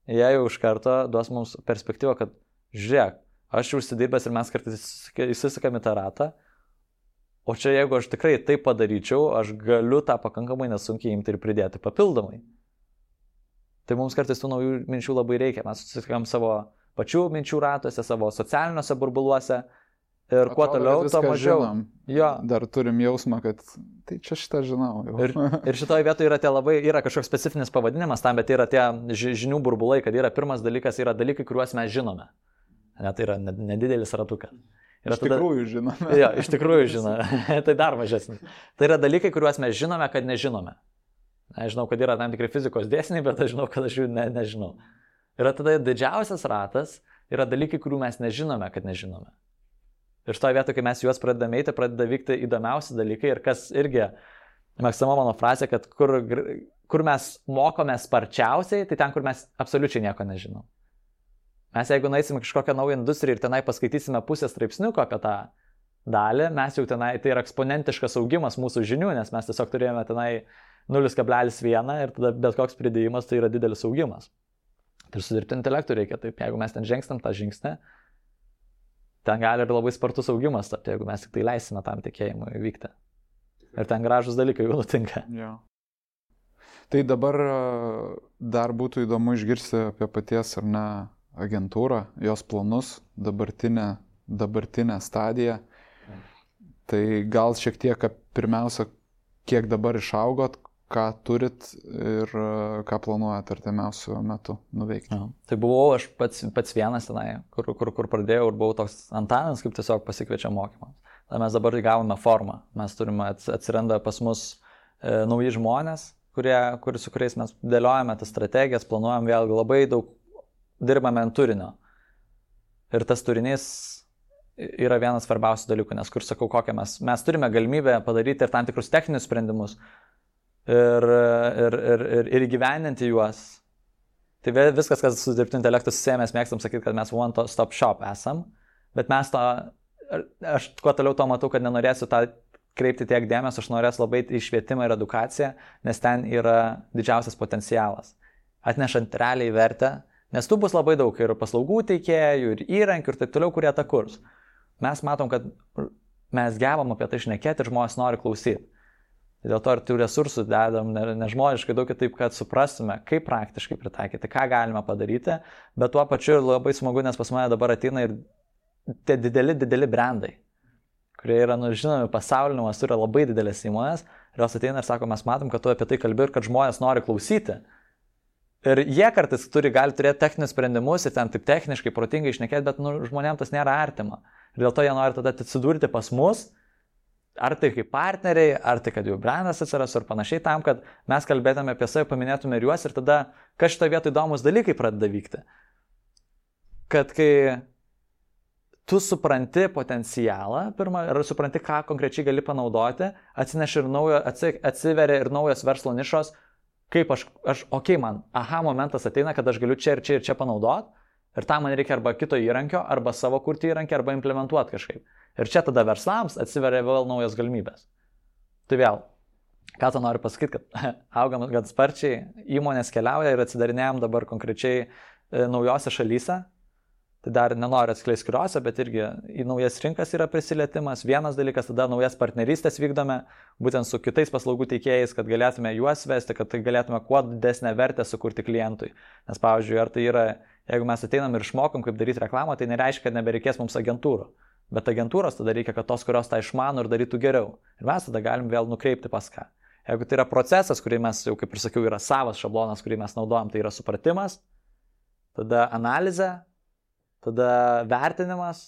jie jau iš karto duos mums perspektyvą, kad žiūrėk, aš jau užsidirbęs ir mes kartais įsisukam į tą ratą, o čia jeigu aš tikrai taip padaryčiau, aš galiu tą pakankamai nesunkiai imti ir pridėti papildomai. Tai mums kartais tų naujų minčių labai reikia. Mes susitikam savo pačių minčių ratuose, savo socialiniuose burbuluose ir kuo toliau, to mažiau. Jo. Dar turim jausmą, kad tai čia šitą žinau. Ir šitoje vietoje yra kažkoks specifinis pavadinimas tam, bet yra tie žinių burbulai, kad yra pirmas dalykas, yra dalykai, kuriuos mes žinome. Ne, tai yra nedidelis ratukas. Tikrųjų žinome. Jo, iš tikrųjų žinome. Tai dar mažesnis. Tai yra dalykai, kuriuos mes žinome, kad nežinome. Aš žinau, kad yra tam tikri fizikos dėsniai, bet aš žinau, kad aš jų nežinau. Ir tada didžiausias ratas yra dalykai, kurių mes nežinome, kad nežinome. Ir šitoje vietoje, kai mes juos pradedame eiti, pradeda vykti įdomiausi dalykai ir kas irgi, mėgstama mano frazė, kad kur mes mokome sparčiausiai, tai ten, kur mes absoliučiai nieko nežinom. Mes jeigu nueisime kažkokią naują industriją ir tenai paskaitysime pusę straipsniuko apie tą dalį, mes jau tenai, tai yra eksponentiškas augimas mūsų žinių, nes mes tiesiog turėjome tenai 0,1 ir tada bet koks pridėjimas tai yra didelis augimas. Ir su dirbtiniu intelektu reikia taip, jeigu mes ten žingstam tą žingsnį, ten gali ir labai spartus augimas tapti, jeigu mes tik tai leisime tam tikėjimui vykti. Ir ten gražus dalykai jau nutinka. Ja. Tai dabar dar būtų įdomu išgirsti apie paties ar ne agentūrą, jos planus, dabartinę stadiją. Tai gal šiek tiek pirmiausia, kiek dabar išaugot, ką turit ir ką planuojat artimiausiu metu nuveikti. Ja. Tai buvau aš pats vienas tenai, kur pradėjau ir buvau toks Antanas, kaip tiesiog pasikviečia mokymams. Tai mes dabar įgavome formą. Mes turime, atsiranda pas mus nauji žmonės, su kuriais mes dėliojame tas strategijas, planuojam vėlgi labai daug dirbame ant turinio. Ir tas turinys yra vienas svarbiausių dalykų, nes kur sakau, kokią mes turime galimybę padaryti ir tam tikrus techninius sprendimus ir įgyvendinti juos. Tai viskas, kas su dirbtiniu intelektu susiję, mes mėgstam sakyti, kad mes one stop shop esam, bet aš kuo toliau to matau, kad nenorėsiu tą kreipti tiek dėmesio, aš norėsiu labai į švietimą ir edukaciją, nes ten yra didžiausias potencialas, atnešant realiai vertę, nes tų bus labai daug ir paslaugų teikėjų, ir įrankių, ir taip toliau, kurie tą kurs. Mes matom, kad mes gebam apie tai šnekėti ir žmonės nori klausyti. Dėl to ir tų resursų dedam nežmoniškai daug taip, kad suprastume, kaip praktiškai pritaikyti, ką galime padaryti, bet tuo pačiu labai smagu, nes pas mane dabar ateina ir tie dideli brandai, kurie yra, žinomi, pasauliniu mastu, yra labai didelės įmonės, ir jos ateina ir sako, mes matom, kad tu apie tai kalbi ir kad žmonės nori klausyti. Ir jie kartais gali turėti techninius sprendimus ir ten taip techniškai, protingai išnekėti, bet žmonėms tas nėra artima. Ir dėl to jie nori tada atsidurti pas mus, ar tai kaip partneriai, ar tai kad jų brandas atsiras ir panašiai tam, kad mes kalbėtume apie save, paminėtume ir juos ir tada, kas šitoje vietoje įdomus dalykai pradeda vykti. Kad kai tu supranti potencialą, pirmą, ir supranti, ką konkrečiai gali panaudoti, atsiveria ir naujos verslo nišos, kaip man momentas ateina, kad aš galiu čia ir čia panaudoti. Ir tam man reikia arba kito įrankio, arba savo kurti įrankį, arba implementuoti kažkaip. Ir čia tada verslams atsiveria vėl naujos galimybės. Tai vėl, ką tu nori pasakyti, kad augam gan sparčiai, įmonės keliauja ir atsidarinėjom dabar konkrečiai naujose šalyse. Tai dar nenoriu atskleisti kuriuose, bet irgi į naujas rinkas yra prisilietimas. Vienas dalykas, tada naujas partnerystės vykdome, būtent su kitais paslaugų teikėjais, kad galėtume juos vesti, kad tai galėtume kuo didesnę vertę sukurti klientui. Nes, pavyzdžiui, ar tai yra, jeigu mes ateinam ir išmokom, kaip daryti reklamą, tai nereiškia, kad nebereikės mums agentūrų. Bet agentūros tada reikia, kad tos, kurios tą išmano ir darytų geriau. Ir mes tada galim vėl nukreipti pas ką. Jeigu tai yra procesas, kurį mes, jau kaip ir sakiau, yra savas šablonas, kurį mes naudojam, tai yra supratimas, tada analizė, tada vertinimas,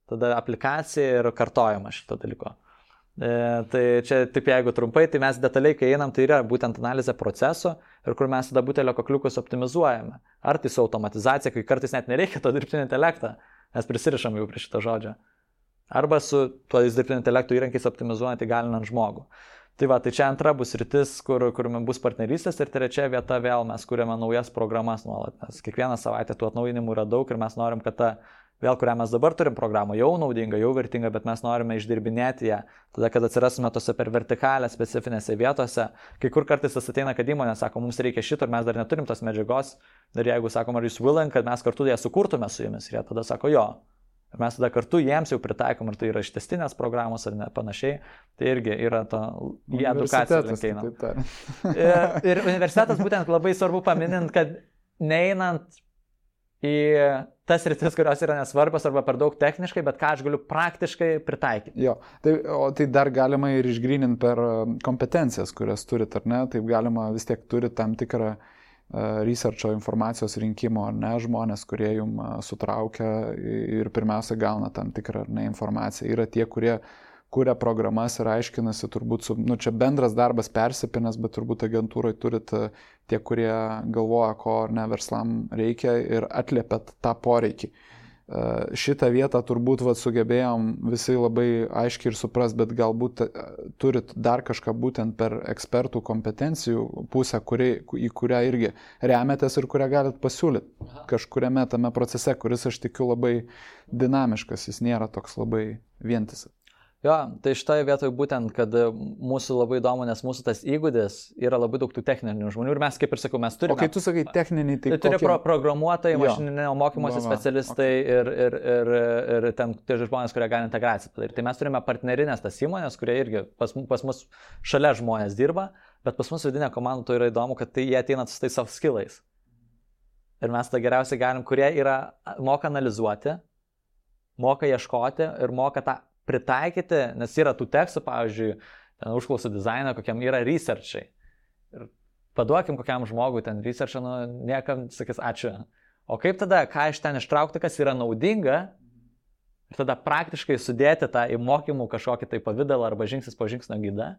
tada aplikacija ir kartojimas šito dalyko. Tai čia taip jeigu trumpai, tai mes detaliai, kai einam, tai yra būtent analizė procesų ir kur mes tada butelio kakliukus optimizuojame. Ar tai su automatizacija, kai kartais net nereikia to dirbtinio intelektą, mes prisirišam jau prie šito žodžio. Arba su tuo dirbtinio intelekto įrankiais optimizuojant įgalinant žmogų. Tai va, tai čia antra bus rytis, kur bus partnerystės ir trečia vieta vėl mes kuriame naujas programas nuolat, nes kiekvieną savaitę tų atnaujinimų yra daug ir mes norim, kad ta vėl, kurią mes dabar turim programą, jau naudinga, jau vertinga, bet mes norime išdirbinėti ją, tada, kad atsirasime tose per vertikalę specifinėse vietose, kai kur kartais tas ateina, kad įmonė sako, mums reikia šito ir mes dar neturim tos medžiagos, ir jeigu sakom, ar jūs willing, kad mes kartu ją sukurtume su jumis, ir jie tada sako, jo. Ir mes tada kartu jiems jau pritaikom, ar tai yra ištestinės programos ar ne panašiai, tai irgi yra to į edukaciją linkeinam. Ir universitetas būtent labai svarbu paminint, kad neinant į tas rytis, kurios yra nesvarbios arba per daug techniškai, bet ką aš galiu praktiškai pritaikyti. Jo, tai dar galima ir išgryninti per kompetencijas, kurias turit, ar ne, taip galima vis tiek turi tam tikrą researcho informacijos rinkimo, ar ne, žmonės, kurie jum sutraukia ir pirmiausia gauna tam tikrą informaciją. Yra tie, kurie kuria programas ir aiškinasi, turbūt, čia bendras darbas persipinęs, bet turbūt agentūrai turit tie, kurie galvoja, ko ne verslam reikia ir atliepėt tą poreikį. Šitą vietą turbūt sugebėjom visi labai aiškiai ir supras, bet galbūt turit dar kažką būtent per ekspertų kompetencijų pusę, į kurią irgi remiatės ir kurią galit pasiūlyti kažkuriame tame procese, kuris aš tikiu labai dinamiškas, jis nėra toks labai vientisas. Jo, tai šitoje vietoje būtent, kad mūsų labai įdomu, nes mūsų tas įgūdis yra labai daug tų techninių žmonių ir mes, kaip ir sakau, mes turime... O kai tu sakai techniniai, tai turi programuotojai, mašininio mokymosi specialistai ir ten tie žmonės, kurie gali integraciją padaryti. Tai mes turime partnerinės tas įmonės, kurie irgi pas mus šalia žmonės dirba, bet pas mus vidinė komanda to yra įdomu, kad jie ateina su tais soft skillais. Ir mes tą geriausiai galim, kurie moka analizuoti, moka ieškoti ir moka tą pritaikyti, nes yra tų tekstų, pavyzdžiui, užklausų dizainą, kokiam yra researchai. Ir paduokim kokiam žmogui ten researchą, niekam sakys ačiū. O kaip tada, ką iš ten ištraukti, kas yra naudinga, ir tada praktiškai sudėti tą į mokymų kažkokį tai pavydalą arba žingsnis po žingsnio gidą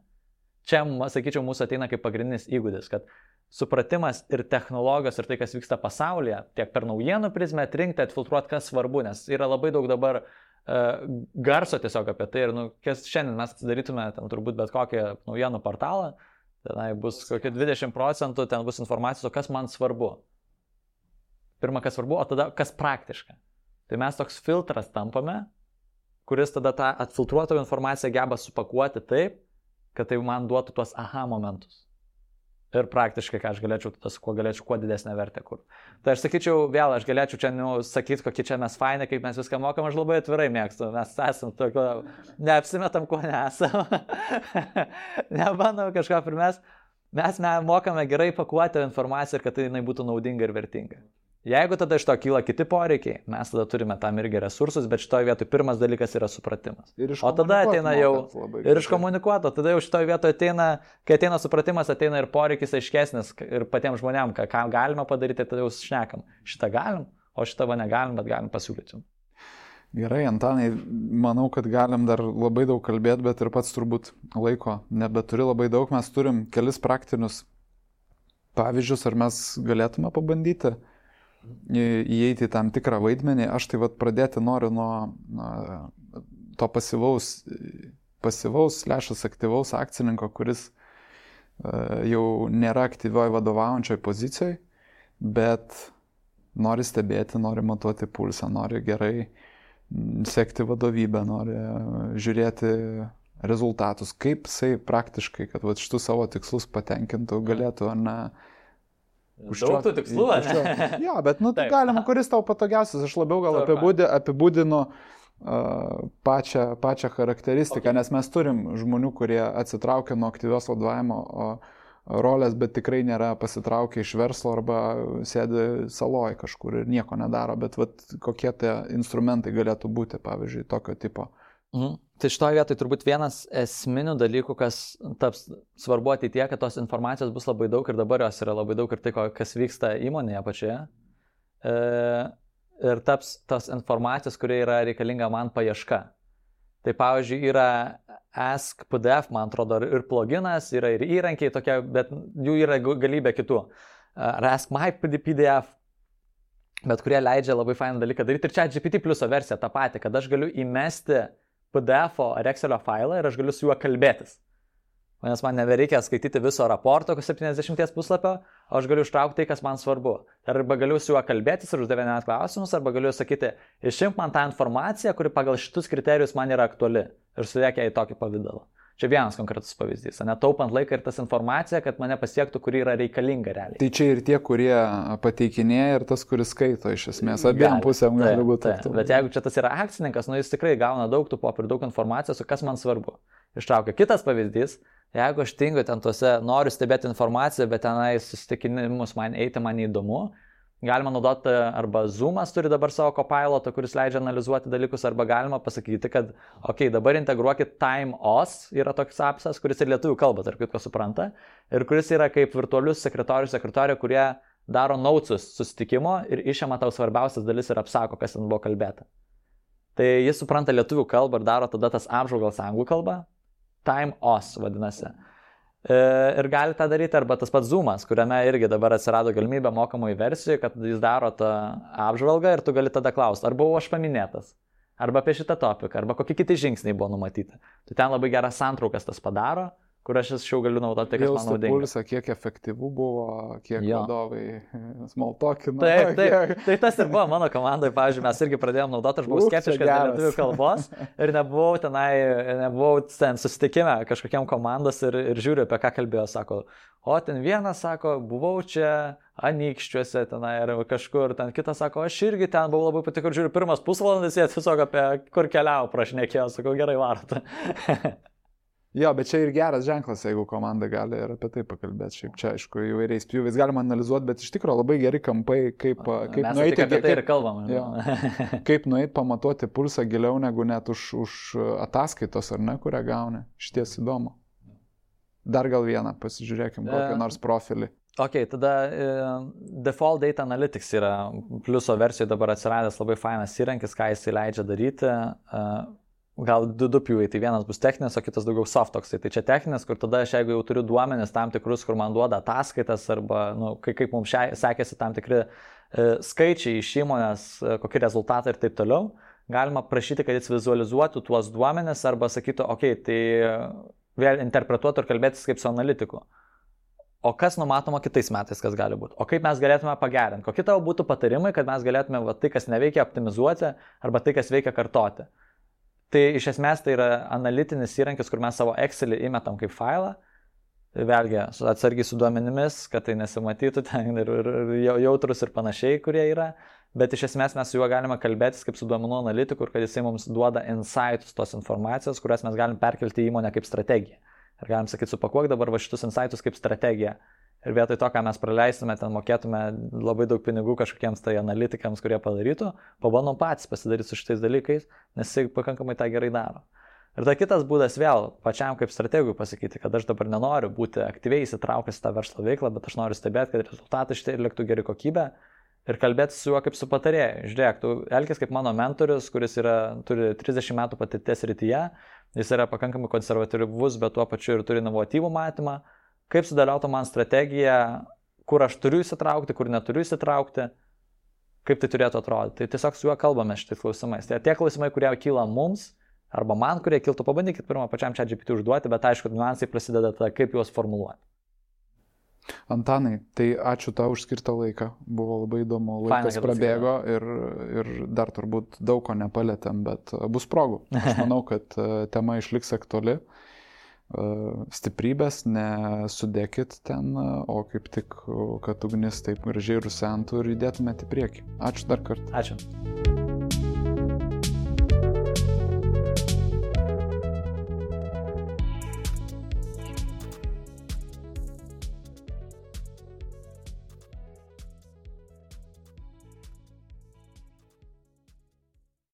čia, sakyčiau, mūsų ateina kaip pagrindinis įgūdis, kad supratimas ir technologijos ir tai, kas vyksta pasaulyje, tiek per naujienų prizmę atrinkti, atfiltruoti, kas svarbu, nes yra labai daug dabar garso tiesiog apie tai ir, kas šiandien mes darytume ten turbūt bet kokį naujienų portalą, tenai bus kokie 20%, ten bus informacijos, o kas man svarbu. Pirma, kas svarbu, o tada kas praktiška. Tai mes toks filtras tampame, kuris tada tą atfiltruotą informaciją geba supakuoti taip, kad tai man duotų tuos aha momentus. Ir praktiškai, ką aš galėčiau, kuo didesnę vertę kur. Tai aš sakyčiau, vėl, aš galėčiau čia sakyti, kokie čia mes fainai, kaip mes viską mokam, aš labai atvirai mėgstu. Mes esam tokio, neapsimetam, ko nesam. Nebandom kažką primest. Mes mokame gerai pakuoti informaciją ir kad tai jinai būtų naudinga ir vertinga. Jeigu tada iš to kyla kiti poreikiai, mes tada turime tam irgi resursus, bet šitoje vietoje pirmas dalykas yra supratimas. O tada ateina jau ir iškomunikuoto, tada jau šitoje vietoje ateina, kai ateina supratimas, ateina ir poreikis aiškesnis ir patiems žmonėms, ką galima padaryti, tada jau šnekam. Šitą galim, o šitą va negalim, bet galim pasiūlyti. Gerai, Antanai, manau, kad galim dar labai daug kalbėti, bet ir pats turbūt laiko nebeturi labai daug. Mes turim kelis praktinius pavyzdžius, ar mes galėtume pabandyti įeiti į tam tikrą vaidmenį. Aš tai pradėti noriu nuo to pasyvaus / aktyvaus akcininko, kuris jau nėra aktyvioj vadovaujančioj pozicijoje, bet nori stebėti, nori matuoti pulsą, nori gerai sekti vadovybę, nori žiūrėti rezultatus. Kaip jisai praktiškai, kad šitų savo tikslus patenkintų, galėtų, ar ne, daug tų tikslų, ne? Jo, bet tai galima, kuris tau patogiausias. Aš labiau gal apibūdinu pačią charakteristiką, okay. Nes mes turim žmonių, kurie atsitraukia nuo aktyvios vadovavimo rolės, bet tikrai nėra pasitraukę iš verslo arba sėdi saloj kažkur ir nieko nedaro. Bet kokie tie instrumentai galėtų būti, pavyzdžiui, tokio tipo? Tai šitoje vietoje turbūt vienas esminių dalykų, kas taps svarbu ateityje, kad tos informacijos bus labai daug ir dabar jos yra labai daug ir tai, kas vyksta įmonėje pačioje. Ir taps tos informacijos, kurie yra reikalinga man paieška. Tai pavyzdžiui yra Ask PDF, man atrodo, ir pluginas, yra ir įrankiai tokie, bet jų yra galybė kitų. Ar Ask My PDF, bet kurie leidžia labai fainą dalyką daryti. Ir čia GPT pliuso versija tą patį, kad aš galiu įmesti PDF-o ar Excelio failą ir aš galiu su juo kalbėtis. Nes man nebereikia skaityti viso raporto 70 puslapio, o aš galiu ištraukti tai, kas man svarbu. Arba galiu su juo kalbėtis ir uždavinėti klausimus, arba galiu sakyti, išimk man tą informaciją, kuri pagal šitus kriterijus man yra aktuali ir sudėk ją į tokį pavydalą. Čia vienas konkretus pavyzdys, netaupant laiką ir tas informacija, kad mane pasiektų, kuri yra reikalinga realiai. Tai čia ir tie, kurie pateikinėja, ir tas, kuris skaito iš esmės. Abiem pusėm gali būti. Bet jeigu čia tas yra akcininkas, jis tikrai gauna daug tų popierių, daug informacijos, kas man svarbu. Ištraukia. Kitas pavyzdys, jeigu aš tingiu ten tuose, noriu stebėti informaciją, bet tenai susitikinimus man neįdomu, galima naudoti arba Zoomas turi dabar savo copilotą, kuris leidžia analizuoti dalykus, arba galima pasakyti, kad dabar integruokit TimeOS, yra toks apsas, kuris ir lietuvių kalbą, tarp kitko supranta, ir kuris yra kaip virtualius sekretorių, kurie daro notesus susitikimo ir išima tau svarbiausias dalis ir apsako, kas ten buvo kalbėta. Tai jis supranta lietuvių kalbą ir daro tada tas apžvalgas anglų kalbą, TimeOS vadinasi. Ir gali tą daryti, arba tas pats Zoomas, kuriame irgi dabar atsirado galimybė mokamųjų versijų, kad jis daro tą apžvalgą ir tu gali tada klausti, ar buvau aš paminėtas, arba apie šitą topiką, arba kokie kiti žingsniai buvo numatyti. Tai ten labai geras santraukas tas padaro, kur aš jau galiu naudoti, kas man naudinga. Pulsą, kiek efektyvų buvo, kiek vadovai smalltalkino. Taip, tai tas ir buvo mano komandai, pavyzdžiui, mes irgi pradėjom naudoti, aš buvau skeptiškas dėl lietuvių kalbos ir nebuvau ten susitikime kažkokiam komandos ir žiūriu, apie ką kalbėjo, sako, o ten vienas sako, buvau čia Anykščiuose tenai ir kažkur, ten kitas sako, aš irgi ten buvau labai patiko ir žiūriu, pirmas pusvalandis jie tiesiog apie kur keliau prašnekėjo, sako, gerai varot. Jo, bet čia ir geras ženklas, jeigu komanda gali ir apie tai pakalbėti. Šiaip čia, aišku, įvairiais pjūviais galima analizuoti, bet iš tikrųjų labai geri kampai, kaip nueiti, kaip nueiti pamatuoti pulsą giliau negu net už ataskaitos, ar ne, kurią gauni. Šties įdomu. Dar gal vieną, pasižiūrėkim, kokį nors profilį. Ok, tada Default Data Analytics yra pliuso versijoje dabar atsiradęs labai fainas įrankis, ką jis leidžia daryti. gal du pjūviai, tai vienas bus techninis, o kitas daugiau soft toksai. Tai čia techninis, kur tada aš jeigu jau turiu duomenis tam tikrus, kur man duoda ataskaitas arba kaip mums sekėsi tam tikri skaičiai iš įmonės, kokie rezultatai ir taip toliau, galima prašyti, kad jis vizualizuotų tuos duomenis arba sakytų, tai vėl interpretuotų ir kalbėtis kaip su analitiku. O kas numatoma kitais metais, kas gali būti? O kaip mes galėtume pagerinti? Kokie tavo būtų patarimai, kad mes galėtume tai, kas neveikia, optimizuoti arba tai, kas veikia, kartoti? Tai iš esmės tai yra analitinis įrankis, kur mes savo Excelį įmetam kaip failą. Vėlgi, atsargiai su duomenimis, kad tai nesimatytų ten ir jautrus ir panašiai, kurie yra. Bet iš esmės mes su juo galime kalbėtis kaip su duomenų analitiku, kad jisai mums duoda insights tos informacijos, kurias mes galim perkelti į įmonę kaip strategiją. Ir galim sakyti, supakuok dabar šitus insights kaip strategiją. Ir vietoj to, ką mes praleistume, ten mokėtume labai daug pinigų kažkokiems tai analitikams, kurie padarytų, pabandom patys pasidaryti su šitais dalykais, nes jisai pakankamai tą gerai daro. Ir ta kitas būdas vėl pačiam kaip strategui pasakyti, kad aš dabar nenoriu būti aktyviai įsitraukęs į tą verslo veiklą, bet aš noriu stebėti, kad rezultatai šitai liktų geri kokybė ir kalbėti su juo kaip su patarėju. Žiūrėk, tu elkis kaip mano mentorius, kuris turi 30 metų patirties rytyje, jis yra pakankamai konservatyvus, bet tuo pačiu ir turi inovatyvų matymą, kaip sudėliautų man strategiją, kur aš turiu įsitraukti, kur neturiu įsitraukti, kaip tai turėtų atrodyti. Tai tiesiog su juo kalbame šitais klausimais. Tai tie klausimai, kurie kyla mums, arba man, kurie kiltų, pabandykit pirmą pačiam ChatGPT užduoti, bet aišku, niuansai prasideda tada, kaip juos formuluoti. Antanai, tai ačiū tau už skirtą laiką, buvo labai įdomu, laikas prabėgo ir dar turbūt daug ko nepalėtėm, bet bus progų. Aš manau, kad tema išliks aktuali, stiprybės nesudėkit ten, o kaip tik, kad ugnis taip gražiai rusentų ir judėtumėte į priekį. Ačiū dar kartą. Ačiū.